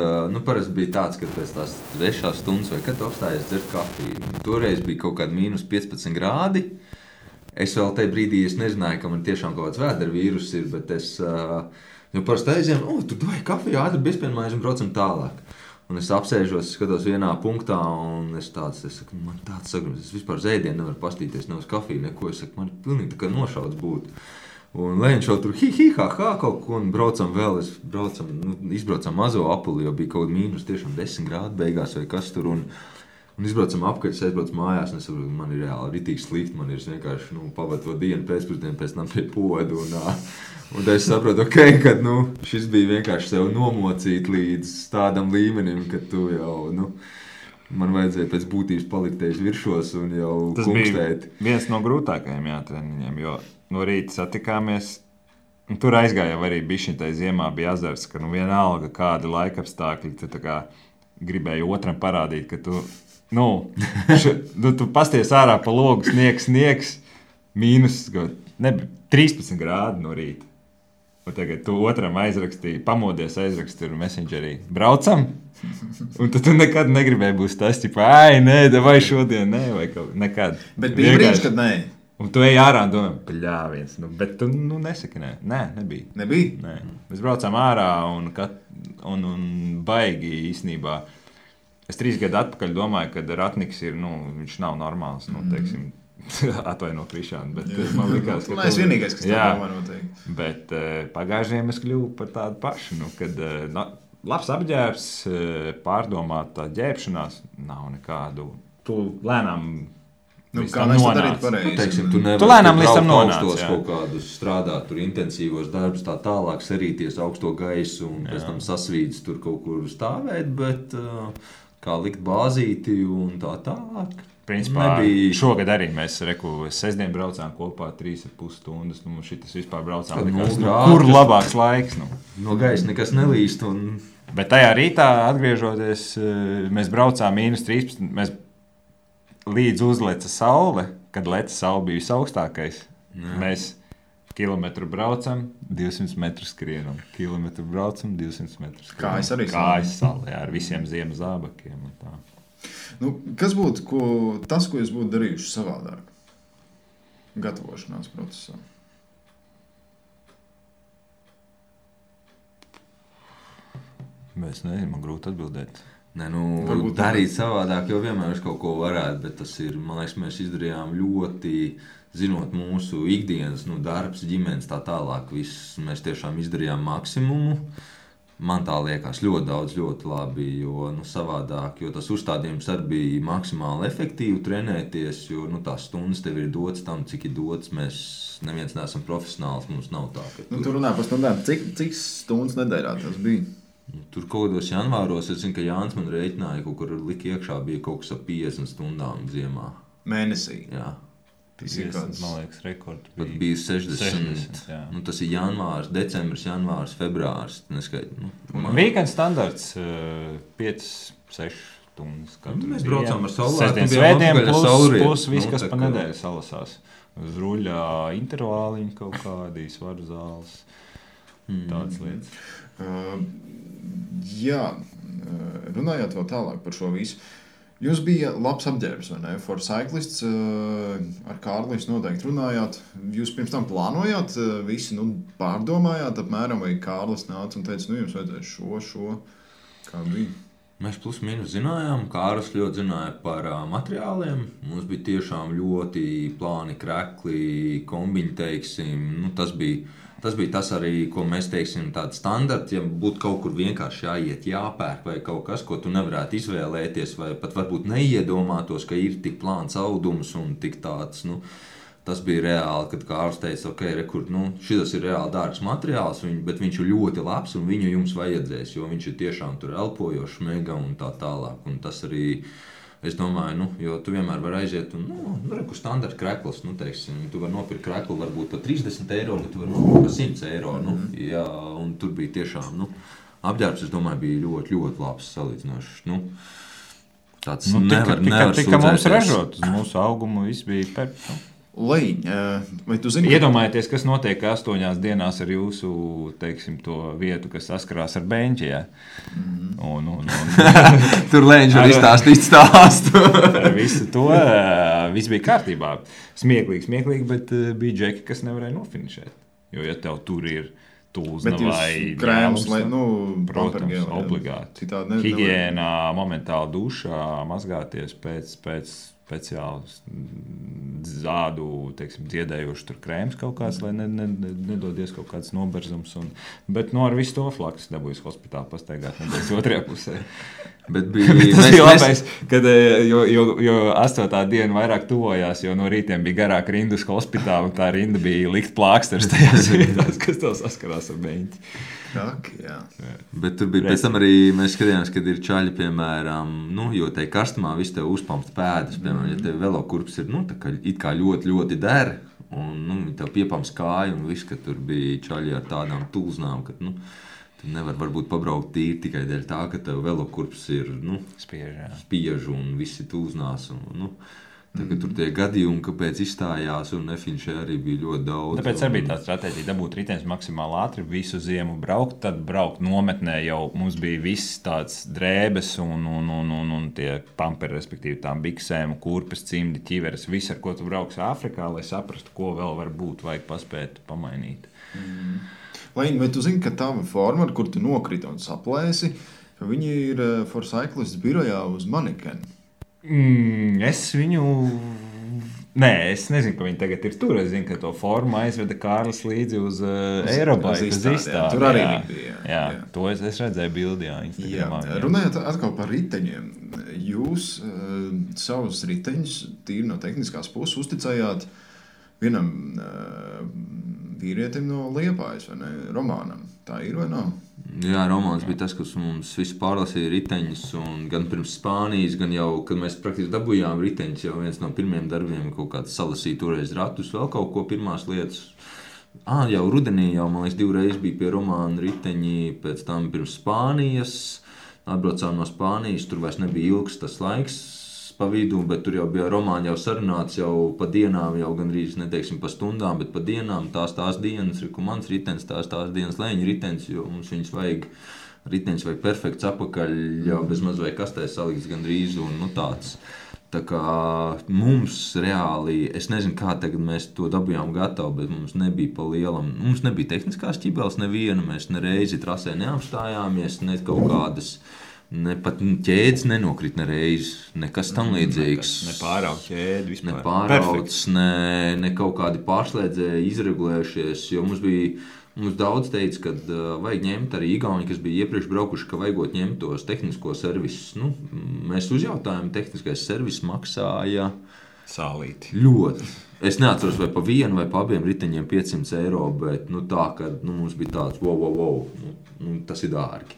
Parasti bija tāds, ka pēc tās 6 stundas vai kad tu apstājies dzert kafiju. Toreiz bija kaut kādi -15 grādi. Es vēl tajā brīdī nezināju, ka man tiešām kaut kāds vēdera vīrus ir, bet es parasti aizjām, tur vai kafiju ātri bezpienmājas un braucam tālāk. Un es apsēžos, skatos vienā punktā, un es saku, man tāds sagrums, es vispār zēdienu nevaru pastīties, ne uz kafiju, neko. Es saku, man pilnīgi tā kā nošauts būtu. Un Leņš jau tur ha kaut ko, un braucam vēl, izbraucam mazo apuli, jo bija kaut tiešām 10 grādi beigās vai kas tur, un izbraucam apkārt, es aizbraucu mājās, un es saprotu, man ir reāli ritīgi slikti, man ir vienkārši, pavadu to dienu pēcpusdienu, pēc tam pie podu, un es saprotu, ka šis bija vienkārši sev nomocīt līdz tādam līmenim, ka tu jau, man vajadzēja pēc būtības palikt viršos un jau tas kungstēt. Tas bija viens no grūtākajiem treniņiem, jo no rīta satikāmies, un tur aizgāja arī bišķiņtai ziemā bija azars, ka vienalga kādi laikapstākļi, tu tā kā gribēji otram parādīt, ka tu, tu pasties ārā pa logu, sniegs, mīnus, nebija 13 grādi no rīta. Un tagad tu otram aizrakstīji, pamodies aizrakstīji Messengerī. Braucam? Un tad tu nekad negribēji būt tas, vai šodien, vai kaut nekad. Bet bija brīdis, kad nē. Un tu ej ārā un domā, paļāviens. Bet tu nesaki nē. Nē, nebija. Nebija? Nē. Mēs braucām ārā un baigi īstenībā. Es 3 gadu atpakaļ domāju, ka Ratniks ir, viņš nav normāls, teiksim, atvaino Krišānu, bet man likās, ka... Es vienīgais, kas tā domā noteikti. Bet pagājušajiem es kļuvu par tādu pašu, kad labs apģērbs, pārdomāta ģērbšanās, nav nekādu. Tu lēnām Nu, kā mēs to darīt pareizi? Teiksim, tu nevari lēnām līdz tam nonāc, augstos jā. kaut kādus strādāt, tur intensīvos darbus, tā tālāk sarīties augsto gaisu un pēc tam sasvīdus tur kaut kur stāvēt, bet kā likt bāzīti un tā tālāk. Principā šogad arī mēs sestdien braucām kopā 3,5 stundas. Nu, šitas vispār braucām likās, kur labāks laiks. Nu. No gaisa nekas nelīst. Bet tajā rītā atgriežoties, mēs braucām -13. Mēs līdz uzleca saule, kad leca saule bija visaugstākais. Jā. Mēs kilometru braucam, 200 metrus skrienam. Kilometru braucam, 200 metrus skrienam. Kājas arī sali, jā, ar visiem ziemas zābakiem un tā. Nu, kas būtu tas, ko jūs būtu darījuši savādāk gatavošanās procesā? Es nezinu, man grūti atbildēt. Nē, nu, darīt savādāk, jo vienmēr es kaut ko varētu, bet tas ir, man liekas, mēs izdarījām ļoti, zinot mūsu ikdienas, darbs, ģimenes, tā tālāk, viss, mēs tiešām izdarījām maksimumu. Man tā liekas ļoti daudz, ļoti labi, jo savādāk, jo tas uzstādījums arī bija maksimāli efektīvi trenēties, jo tās stundas tev ir dotas tam, cik ir dotas. Mēs neviens neesam profesionāls, mums nav tā. Tu runā par stundām, cik stundas nedēļā tas bija? Tur kaut kādos janvāros, es zinu, ka Jānis man rēķināja, kaut kur lika iekšā bija kaut kas ap 50 stundām ziemā. Mēnesī? Jā. 50, man liekas, rekords bija. Pat bija 60 tas ir janvārs, decembris, janvārs, februārs. Weekend standarts 5-6 stundas. Mēs braucām ar saulēktu. Svētdien plus viss, kas pa nedēļu salasās. Uz ruļā intervāliņi kaut kādi, svaru zāles, tādas lietas. Jā, runājot vēl tālāk par šo visu. Jūs bija labs apģērbs, vai ne? For Cyclists ar Kārli jūs noteikti runājāt. Jūs pirms tam plānojāt, visi pārdomājāt apmēram, vai Kārlis nāca un teica, jums vajadzēs šo, kā bija? Mēs plus mīnus zinājām, Kārlis ļoti zināja par materiāliem. Mums bija tiešām ļoti plāni, krekli, kombiņi, teiksim. Tas bija tas arī, ko mēs teiksim, tāda standarta, ja būtu kaut kur vienkārši jāiet, jāpērk vai kaut kas, ko tu nevarētu izvēlēties, vai pat varbūt neiedomātos, ka ir tik plāns audums un tik tāds, tas bija reāli, kad Kārlis teica, ok, šitas ir reāli dārgs materiāls, bet viņš ir ļoti labs un viņu jums vajadzēs, jo viņš ir tiešām tur elpojošs, mega un tā tālāk, un tas arī, es domāju, jo tu vienmēr vari aiziet un, kur standarta krekls, teiksim, tu vari nopirkt kreklu varbūt par 30 eiro, bet tu vari nopirkt par 100 eiro, jā, un tur bija tiešām, apģērbs, es domāju, bija ļoti, ļoti labs salīdzinošs, tāds nevar tika mums ražot, uz mūsu augumu viss bija perfekts. Leņ, vai tu zini? Iedomājieties, kas notiek 8 dienās ar jūsu, teiksim, to vietu, kas saskarās ar beņķi, jā. Tur Leņš var izstāstīt stāstu. Ar visu to, viss bija kārtībā. Smieklīgi, bet bija džeki, kas nevarēja nofinišēt. Jo, ja tev tur ir tūzna vai krēms, protams, obligāti. Higiēnā, momentāli dušā, mazgāties pēc speciāls zādu, teiksim, dziedējoši tur krēms kaut kāds, lai nedodies kaut kāds noberzums. Bet ar visu to flaks dabūjas hospitāli pastaigāt nedēļas otrajā pusē. Bet bija labais, kad, jo 8. diena vairāk tuvojās, jo no rītiem bija garāk rinda uz hospitāli, un tā rinda bija likt plāksters tajās vietās, kas tev saskarās ar beņķi. Jā. Bet tur bija pēc tam arī, mēs skatījāmies, kad ir čaļi, piemēram, jo tai karstumā viss tev uzpamst pēdas, piemēram, ja tev velokurps ir, tā kā it kā ļoti, ļoti der, un tev piepamst kāju, un viss, ka tur bija čaļi ar tādām tulznām, ka, tu nevar varbūt pabraukt tīri tikai dēļ tā, ka tev velokurps ir, spiež un visi tulznās, un, Tagad tur tie gadījumi, kāpēc izstājās un nefinišē arī bija ļoti daudz. Tāpēc arī bija tā stratēģija dabūt riteņus maksimāli ātri, visu ziemu braukt, tad braukt nometnē jau mums bija viss tāds drēbes un tie pamperi, respektīvi tām biksēm, kurpes, cimdi, ķiveres, viss, ar ko tu brauks Āfrikā, lai saprastu, ko vēl var būt, vajag paspēt pamainīt. Vai tu zini, ka tava forma, ar kur tu nokriti un saplēsi, ka viņi ir For Cyclists birojā uz manekeni? Es viņu Nē, es nezinu, ka viņi tagad ir tur. Es zinu, ka to formu aizveda Kārlis līdzi uz Aerobike. Tur arī bija. Jā, to es redzēju bildī, Instagramā. Runājot atkal par riteņiem. Jūs savus riteņus tīri no tehniskās puses uzticējāt vienam vīrietim no Liepājas, vai ne? Romānam. Tā ir vai nav? Jā, Romāns bija tas, kas mums visu pārlasīja riteņus, un gan pirms Spānijas, gan jau, kad mēs praktiski dabūjām riteņus, jau viens no pirmiem darbiem kaut kāds salasīja toreiz ratus, vēl kaut ko pirmās lietas. Jau rudenī jau, man liekas, 2 reizes bija pie Romāna riteņi, pēc tam pirms Spānijas, atbraucām no Spānijas, tur vairs nebija ilgs tas laiks pa vidu, bet tur jau bija Romāni jau sarunāts jau pa dienām, jau gandrīz neteiksim pa stundām, bet pa dienām tās dienas, ko mans ritenis, tās dienas Lēņa ritenis, jo mums viņus vajag, ritenis vajag perfekts apakaļ, jau bez maz vai kastē salikts gandrīz un tāds. Tā kā mums reāli, es nezinu, kā tagad mēs to dabījām gatavu, bet mums nebija pa lielam, mums nebija tehniskās ķibeles neviena, mēs nereizi trasē neapstājāmies, ne kaut kādas, ne pat ķēdes nenokrit nereiz, nekas tam līdzīgs. Ne pārauc ķēdi vispār. Ne pārauc, ne kaut kādi pārslēdzēji izregulējušies, jo mums daudz teica, ka vajag ņemt arī Igauni, kas bija iepriekš braukuši, ka vajagot ņemt tos tehnisko servisus. Mēs uzjautājām, tehniskais servis maksāja sālīti. Ļoti. Es neatceros, vai pa vienu vai pa abiem riteņiem 500 eiro, bet tā, ka mums bija tāds, wow, tas ir dārgi.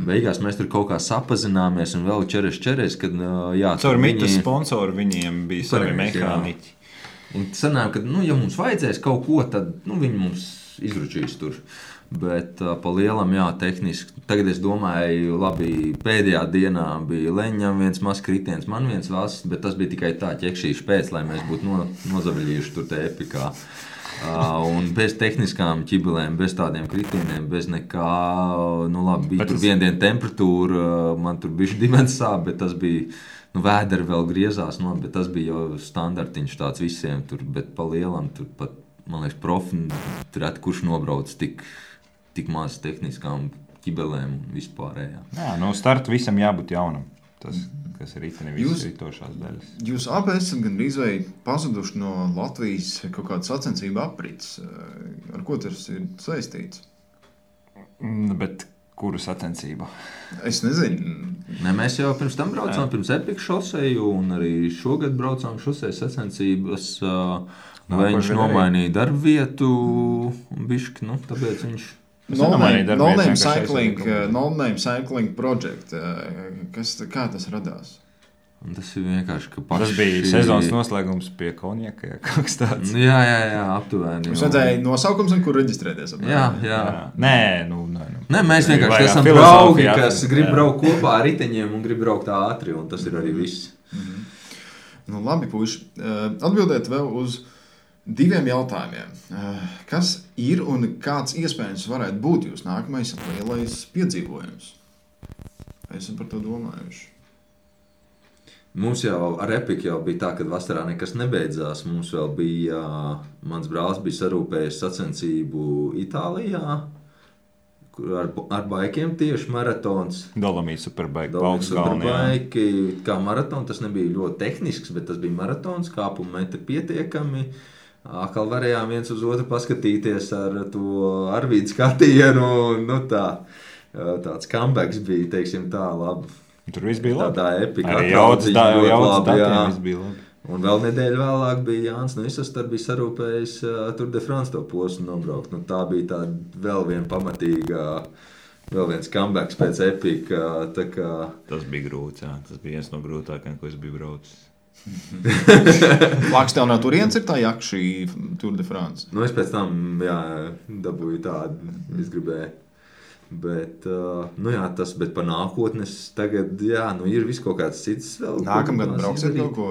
Beigās mēs tur kaut kā sapazināmies un vēl čeres, kad caur mitas sponsoru viņiem bija savi mehāniķi. Un sanāk, ka, ja mums vajadzēs kaut ko, tad viņi mums izručīs tur. Bet pa lielam, tehniski. Tagad es domāju, labi, pēdējā dienā bija Leņam viens mazs kritiens, man viens valsts, bet tas bija tikai tā ķekšīši pēc, lai mēs būtu nozaviļījuši tur te epikā. Un bez tehniskām ķibelēm, bez tādiem kritieniem, bez nekā, labi, bija tur viena diena temperatūra, man tur bišķi dimens sāp, bet tas bija, vēderi vēl griezās, bet tas bija jau standartiņš tāds visiem tur, bet pa lielam tur pat, man liekas, profi, kurš nobrauc tik maz tehniskām ķibelēm un vispārējā. Jā, startu visam jābūt jaunam. Tas, kas ir itini visas ritošās daļas. Jūs abi esat gandrīz vai pazuduši no Latvijas kaut kāda sacensība aprits. Ar ko tas ir saistīts? Bet kuru sacensību? Es nezinu. Mēs jau pirms tam braucām pirms Epic šoseju un arī šogad braucām šoseju sacensības. Viņš nomainīja darbvietu bišķi, tāpēc viņš... No-name cycling project. Kā tas radās? Un tas ir vienkārši, ka paši... Tas bija sezonas noslēgums pie konjaka, kaut kas tāds. Jā, aptuveni. Mums vajadzēja nosaukums, kur reģistrēties. Jā. Nē, mēs vienkārši esam draugi, kas grib braukt kopā ar riteņiem un grib braukt ātri, un tas ir arī viss. Labi, puiši. Atbildēt vēl uz 2 jautājumiem. Kas ir un kāds iespējams varētu būt jūs nākamais lielais piedzīvojums? Esam par to domājuši. Mums jau ar Epic jau bija tā, kad vasarā nekas nebeidzās. Mums vēl bija, mans brālis bija sarūpējis sacensību Itālijā, kur ar baikiem tieši maratons. Dolomīta Superbike. Kā maratons, tas nebija ļoti tehnisks, bet tas bija maratons, kāpuma metri pietiekami. Atkal varējām viens uz otru paskatīties ar to Arvīdu skatienu, tāds comebacks bija, teiksim tā, labi. Tur viss bija labi. Tādā epika jaudas datiem viss bija labi. Un vēl nedēļu vēlāk bija Jānis Isastar bija sarūpējis Tour de France to posmu nobraukt. Tā bija tāda vēl viena pamatīga, vēl viens comebacks pēc epika. Tas bija grūts, tas bija viens no grūtākajiem, ko es biju braucis. Lāks tev no turienes ir tā jaka šī Tour de France? Es pēc tam, dabūju tādu, es gribēju. Bet, tas, bet par nākotnes tagad, ir viss kaut kāds cits vēl. Nākamgad brauksiet kaut ko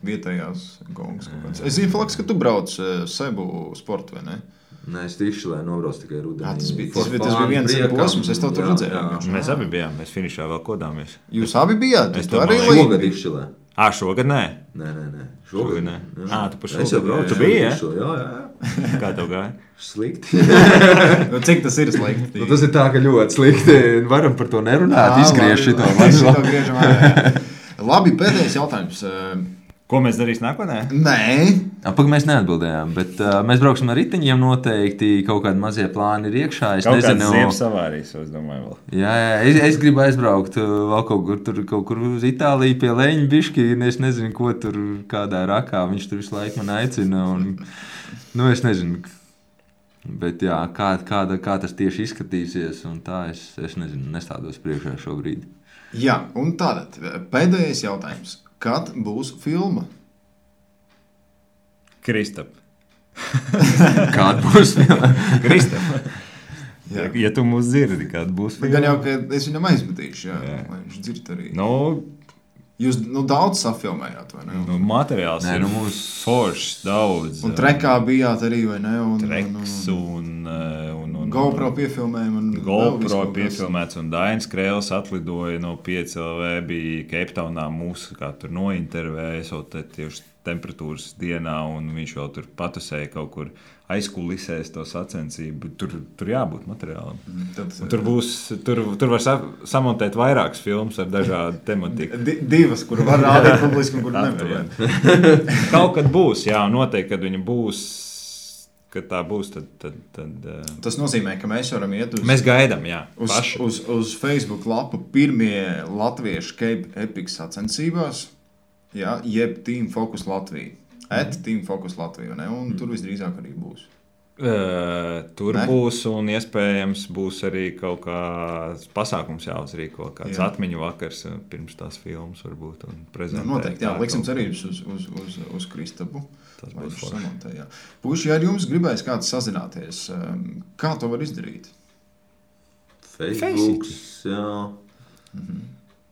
vietējās gongas kaut kāds. Es zinu, Falks, ka tu brauc Sebu sportu, vai ne? Nē, es tieši, lai nobrauc tikai rudenī. Tas bija viens posms, es tev tur redzēju. Mēs abi bijām, mēs finišā vēl kodāmies. Jūs abi bijāt? Es to arī šogad izšķilē. Šogad nē? Nē. Šogad nē. Tu par šogad. Es jau braucu. Tu biji, Jā. Kā tev gāja? Slikti. Cik tas ir slikti? Tas ir tā, ka ļoti slikti. Varam par to nerunāt, izgriež šito. Labi, pēdējais jautājums. Ko mēs darīsim nākotnē? Nē, Pagaidām mēs neatbildējām, bet mēs brauksim ar riteņiem. Noteikti kaut kādi mazie plāni ir iekšā. Es Kaut nezinu, kāds ziemas avārijas, es domāju, vēl. Jā, es gribu aizbraukt vēl kaut kur uz Itāliju pie Leņķa bišķi. Es nezinu, ko tur kādā rakā viņš tur visu laiku man aicina. Es nezinu. Bet jā, kā tas tieši izskatīsies, un tā es nezinu, nestādos priekšā šobrīd. jā, un tātad pēdējais jautājums. Kad būs filma? Kristap. Kāda būs filma? Kristap. Jā. Ja tu mūs dzirdi, kāda būs filma. Gan jau, ka es viņam aizmetīšu, jā. Lai viņš dzird arī. Jūs daudz safilmējāt, vai ne? Materiāls ir mums foršs, daudz. Un trekā bijāt arī, vai ne? Treks un GoPro piefilmējumi. GoPro piefilmēts, un Dainis Krēls atlidoja no 5LV, bija Keiptaunā mūsu, kā tur nointervēja, esot tieši temperatūras dienā, un viņš vēl tur patusēja kaut kur aizkulisēs to sacensību. Tur jābūt materiālam. Tur var samontēt vairākas filmas ar dažādu tematiku. Divas, kur var rādīt publiski un kur nevar. Kaut kad būs, jā, noteikti, kad viņa būs. Kad tā būs, tad Tas nozīmē, ka mēs varam iet mēs gaidām, jā. Uz Facebook lapu pirmie latviešu Cape Epic sacensībās, jā, jeb Team Focus Latvija. Team Focus Latvija, ne? Un tur visdrīzāk arī būs. Tur būs, un iespējams būs arī kaut kāds pasākums jāuzrīko, kāds atmiņu vakars pirms tās filmas varbūt un prezentēt. Noteikti, jā, liksim cerības uz Kristapu. Tas būs forši. Puši, ja ar jums gribēs kāds sazināties, kā to var izdarīt? Facebook, jā.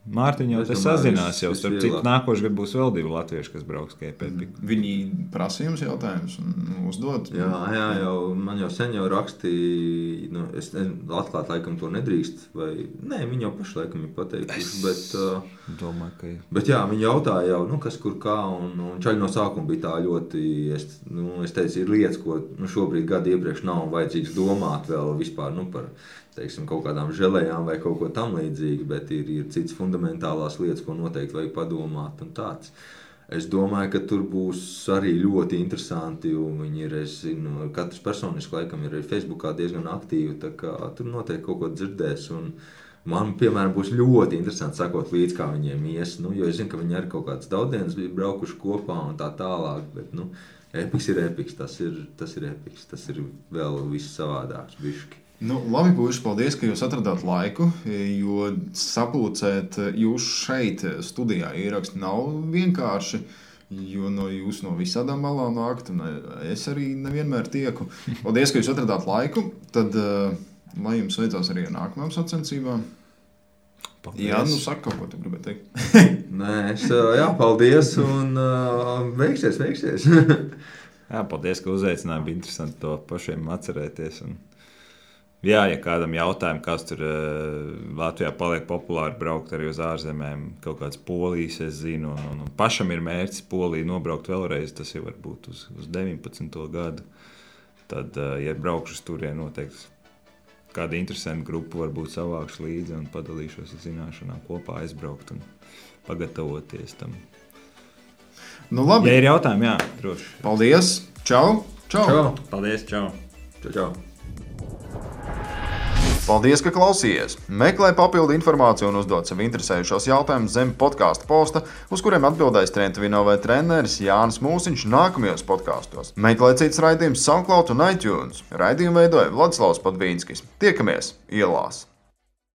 Mārtiņ jau te sazinās jau, starp citu nākošais gadu būs vēl 2 latvieši, kas brauks Cape Epic. Viņi prasa jums jautājumus un uzdod? Jā, man jau sen jau rakstīja, es atklāt laikam to nedrīkst, vai, nē, viņi jau paši laikam ir pateikuši, domāju, ka bet jā, viņi jautāja jau, kas kur kā, un čaļi no sākuma bija tā ļoti, es teicu, ir lietas, ko šobrīd gadu iepriekš nav vajadzīgs domāt vēl vispār, par teiksim, kaut kādām želējām vai kaut ko tam līdzīgi, bet ir cits fundamentālās lietas, ko noteikti vajag padomāt un tāds. Es domāju, ka tur būs arī ļoti interesanti, un viņi ir, es zinu, katrs personiski laikam ir Facebookā diezgan aktīvi, tā kā tur noteikti kaut ko dzirdēs, un man, piemēram, būs ļoti interesanti sakot līdz, kā viņiem ies, jo es zinu, ka viņi arī kaut kādas daudienas bija braukuši kopā un tā tālāk, bet, Epics ir Epics, tas ir Epics, tas ir vēl viss savādāks bišķi. Labi, puiši, paldies, ka jūs atradāt laiku, jo sapulcēt jūs šeit studijā ieraksti nav vienkārši, jo jūs no visādām malām nākt, un es arī nevienmēr tieku. Paldies, ka jūs atradāt laiku, tad lai jums veicās arī ar nākamām sacensībām. Paldies. Jā, saka kaut ko tu gribētu teikt. Nē, paldies, un veiksies. Jā, paldies, ka uzaicināji, bija interesanti to pašiem atcerēties. Jā, ja kādam jautājumam, kas tur Latvijā paliek populāri braukt arī uz ārzemēm, kaut kāds Polijas, es zinu, un pašam ir mērķis Poliju nobraukt vēlreiz, tas jau var būt uz 19. gadu. Tad, ja braukšu uz turien, noteikti kāda interesanta grupa varbūt savākšu līdzi un padalīšos ar zināšanām kopā aizbraukt un pagatavoties tam. Labi. Ja ir jautājumi, jā, droši. Paldies. Čau. Paldies, čau. Čau. Paldies, ka klausījies! Meklē papildu informāciju un uzdod sev interesējušos jautājumus zem podkāstu posta, uz kuriem atbildēs Trentvino vai treneris Jānis Mūsiņš nākamajos podkāstos. Meklē cits raidījums SoundCloud un iTunes. Raidījumu veidoja Vladislavs Padvīnskis. Tiekamies ielās!